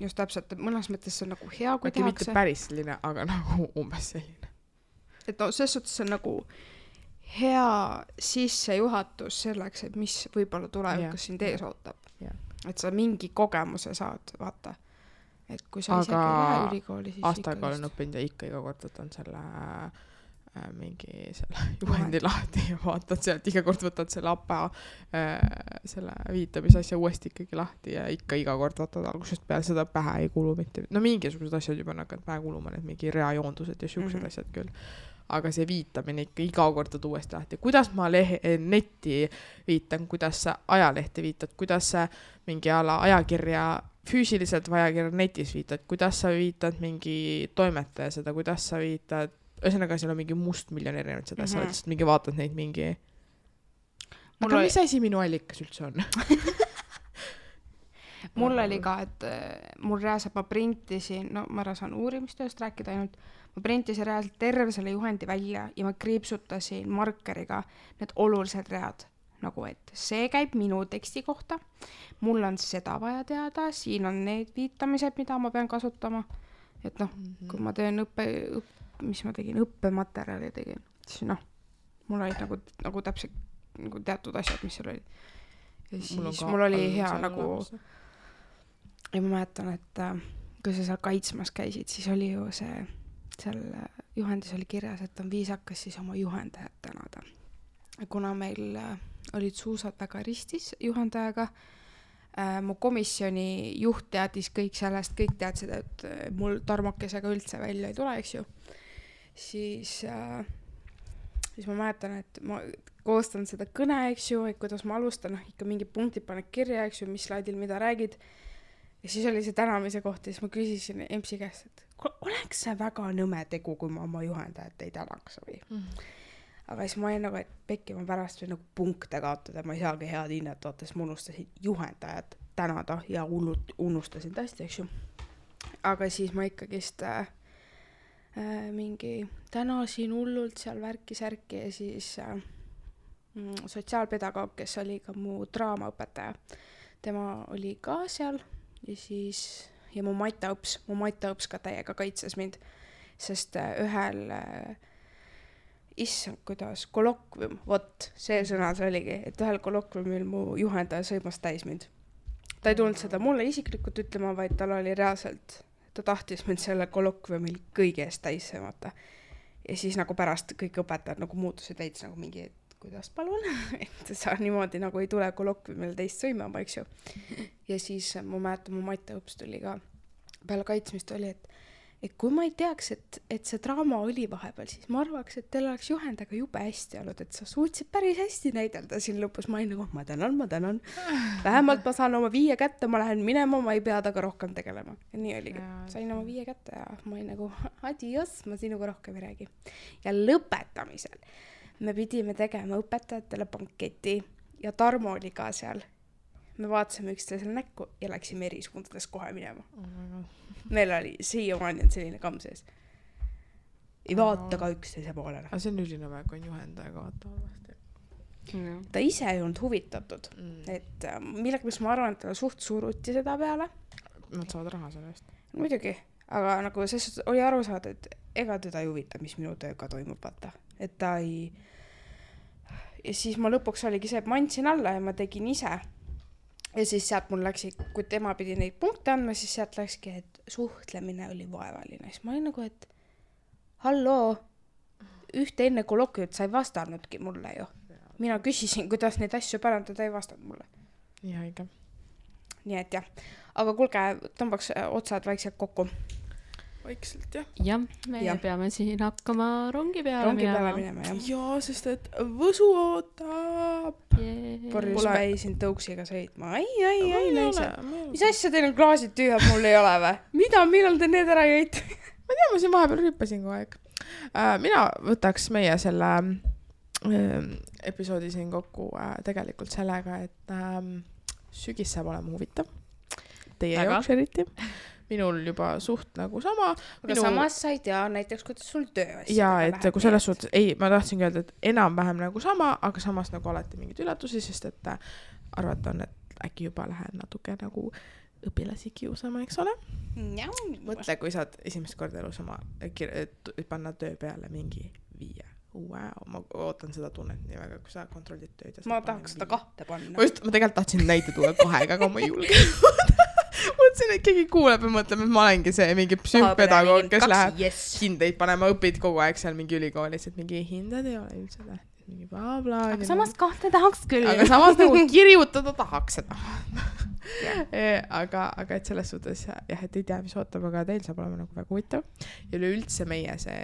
Just täpselt, mõnes mõttes see on nagu hea, kui tehakse. Mitte päris selline, aga nagu umbes selline. Et selles suhtes on nagu hea sissejuhatus selleks, et mis võib-olla tulevikus sind ees ootab. Et sa mingi kogemuse saad, vaata. Et kui sa isegi lähe ülikooli, siis aastaga olen õppinud ja ikka iga kord võtan selle mingi selle juhendi lahti ja vaatad sealt, iga kord võtad selle APA selle viitamisasja uuesti ikkagi lahti ja ikka iga kord võtad algusest peale, seda pähe ei kulu mitte. No mingisugused asjad juba nakad pähe kuluma, need mingi reajoondused ja siuksed asjad küll. Aga see viitamine ikka iga kord võtad uuesti lahti. Kuidas ma netti viitan, kuidas sa ajalehte viitad, kuidas sa mingi ajakirja füüsiliselt või ajakirja netis viitad, kuidas sa viitad mingi toimetaja seda, kuidas sa viitad ühesõnaga, seal on mingi must miljon erinevad seda, sa lihtsalt mingi vaatad neid mingi aga mis asi minu allikas üldse on? Mul oli ka, et mul reaalselt ma printisin, ma ära saan uurimistööst rääkida ainult, ma printisin reaalselt terve selle juhendi välja ja ma kriipsutasin markeriga need olulised read, nagu et see käib minu teksti kohta, mul on seda vaja teada, siin on need viitamised, mida ma pean kasutama, et kui ma teen mis ma tegin, õppematerjali tegin, siis mul olid nagu täpselt nagu teatud asjad, mis seal olid. Ja siis mul oli hea nagu ja ma mäletan, et kui sa seal kaitsmas käisid, siis oli ju seal juhendis oli kirjas, et on viisakas siis oma juhendajat tänada. Kuna meil olid suusad väga ristis juhendajaga, mu komisjoni juht teadis kõik sellest, kõik teadsid, et mul tarmokesega üldse välja ei tule, eks ju. Siis ma mäletan, et ma koostan seda kõne, eks ju, et kuidas ma alustan, ikka mingi punktid paned kirja, eks ju, mis slaidil mida räägid. Ja siis oli see tänamise koht ja siis ma küsisin EMS-i käest, et oleks see väga nõme tegu, kui ma oma juhendajat ei tänaks või. Aga siis ma olin nagu, et pekki ma pärast või nagu punkte kaotada, ma ei saagi head hinnet vaata, siis ma unustasin juhendajat tänada ja unustasin tõesti, eks ju. Aga siis ma ikkagist mingi tänasin hullult seal värki-särki ja siis sotsiaalpedagoog, kes oli ka mu draamaõpetaja, tema oli ka seal ja siis ja mu Maita õps ka täiega kaitses mind, sest ühel issand, kuidas kolokvium, vot, see sõna see oligi, et ühel kolokviumil mu juhendaja sõimas täis mind. Ta ei tulnud seda mulle isiklikult ütlema, vaid tal oli reaalselt, ta tahtis mind selle kolokviumil kõige eest täis sõimata. Ja siis nagu pärast kõik õpetajad nagu muutusid veits nagu mingi kuidas palun, et sa niimoodi nagu ei tule kolokviumil teist sõimama, eks ju. Ja siis ma mäletan, mu matteõps tuli ka peale kaitsmist oli, et kui ma ei teaks, et see draama oli vahepeal, siis ma arvaks, et teil oleks juhendaga jube hästi olnud, et sa suutsid päris hästi näidelda siin lõpus. Ma olin nagu, ma tänan. Vähemalt ma saan oma 5 kätte, ma lähen minema, ma ei pea taga rohkem tegelema. Ja nii oligi. Sain oma 5 kätte ja ma olin nagu, adios, ma sinuga rohkem ei räägi. Ja lõpetamisel me pidime tegema õpetajatele banketi ja Tarmo oli ka seal. Me vaatasime üksteisele näkku ja läksime eri suundades kohe minema. Meil oli siiamaani selline kamm sees. Ei vaata ka üksteise poolele. Aga see on ülinõme, kui on juhendajaga vaata halvasti. Ta ise ei olnud huvitatud. Et millega ma arvan, et ta suht suruti seda peale. Nad saavad raha selle eest. Muidugi. Aga nagu see oli aru saada, et ega teda ei huvita, mis minu tööga toimub, vaata. Et ta ei... Ja siis ma lõpuks oligi see, et ma andsin alla ja ma tegin ise. Ja siis sealt mul läksi, kui tema pidi neid punkte andma, siis sealt läkski, et suhtlemine oli vaevaline. Siis ma olin nagu, et halloo, ühte enne kolokviumit sa ei vastanudki mulle ju. Mina küsisin, kuidas neid asju parandada, ei vastanud mulle. Nii haige. Nii et jah. Aga kuulge, tõmbaks otsad vaikselt kokku. Vaikselt, jah. Ja, me peame siin hakkama rongi peale minema. Jaa, sest et Võsu ootab. Porjus päisin tõuksiga sõitma. Ai, naised. Mis asja teil on klaasid tüühad, mul ei ole või? Mida, millal te need ära jäite? Ma tea, ma siin vahepeal rüppasin kogu aeg. Mina võtaks meie selle episoodi siin kokku tegelikult sellega, et sügis saab olema huvitav. Teie jaoks eriti. Minul juba suht nagu sama. Aga samas sa ei tea näiteks, kuidas sul töö asja. Jaa, et kui selles suhtes, ma tahtsin öelda, et enam-vähem nagu sama, aga samas nagu alati mingid üllatusi, sest et arvata on, et äkki juba lähen natuke nagu õpilasi kiusama, eks ole? Mõtle, kui saad esimest korda elus oma panna töö peale mingi 5. Wow, ma ootan seda tunnet nii väga, kui sa kontrollid tööd. Ma tahaks seda 2 panna. Ma tegelikult tahtsin näite tuua 2, aga ma ei julge. Mõtlesin, et keegi kuuleb ja mõtleb, et ma olengi see mingi psühhopedagoog, kes läheb hindeid panema, õpid kogu aeg seal mingi ülikoolis, et mingi hinded ei ole üldse tähtis, mingi bla-bla. Aga samas 2 tahaks küll. Aga samas nagu kirjutada tahaks seda. aga et selles suhtes, jah, et ei tea, mis ootab, aga teil saab olema nagu väga huvitav. Ja üleüldse meie see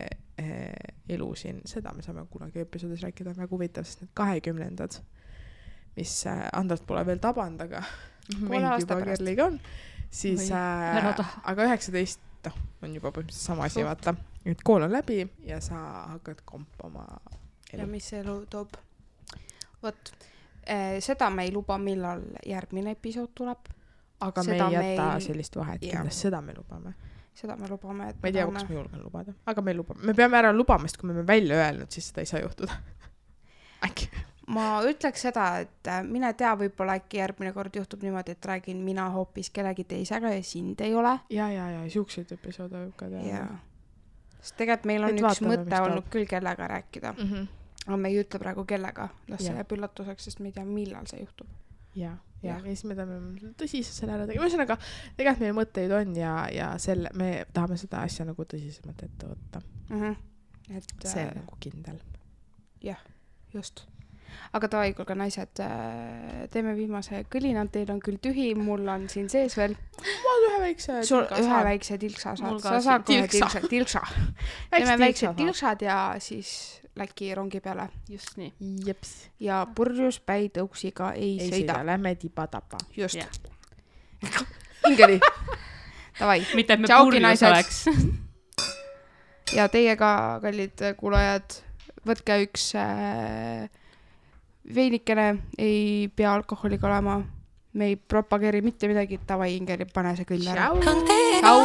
elu siin, seda me saame kunagi episoodis rääkida, on väga huvitav, sest need 20-ndad, mis Andrat pole veel taband, aga meid juba Kerliga on, siis aga 19 on juba põhimõtteliselt sama asi, vaata, et kool on läbi ja sa hakkad kompama elu. Ja mis elu toob? Võt, seda me ei luba, millal järgmine episood tuleb. Aga seda me ei jäta sellist vahet, kindlasti seda me lubame. Seda me lubame, et ma ei tea, kas me julgen lubada, aga me lubame. Me peame ära lubamast, kui me välja öelnud, siis seda ei saa juhtuda. Äkki. Ma ütleks seda, et mine tea, võib-olla äkki järgmine kord juhtub niimoodi, et räägin mina hoopis kellegi teisega ja sind ei ole. Ja, siukseid episoode võib ka teha. Sest tegelikult meil on üks mõte olnud küll kellega rääkida. Aga me ei ütle praegu kellega. Las see jääb üllatuseks, sest me ei tea, millal see juhtub. Ja siis me tahame tõsiselt selle ära tegema. Ühesõnaga, tegelikult meil mõtteid on ja me tahame seda asja nagu tõsisemalt ette võtta. See on nagu kindel. Jah, just. Aga tavai, kuulge naised, teeme viimase kõlina, teil on küll tühi, mul on siin sees veel. Ma ühe väikse tilka ühe väikse tilksa saad. Sa saad kohe tilksa. Teeme väiksed tilksad ja siis läki rongi peale. Just nii. Jeps. Ja purjus päi tõuksiga ei sõida. Lähme tiba-tapa. Just. Ingeli. Tavai. Mitte et me purjus oleks. Ja teiega, kallid kuulajad, võtke üks veinikene, ei pea alkoholiga olema. Me ei propageeri mitte midagi, tavai Ingeli, pane see küll ära. Ciao.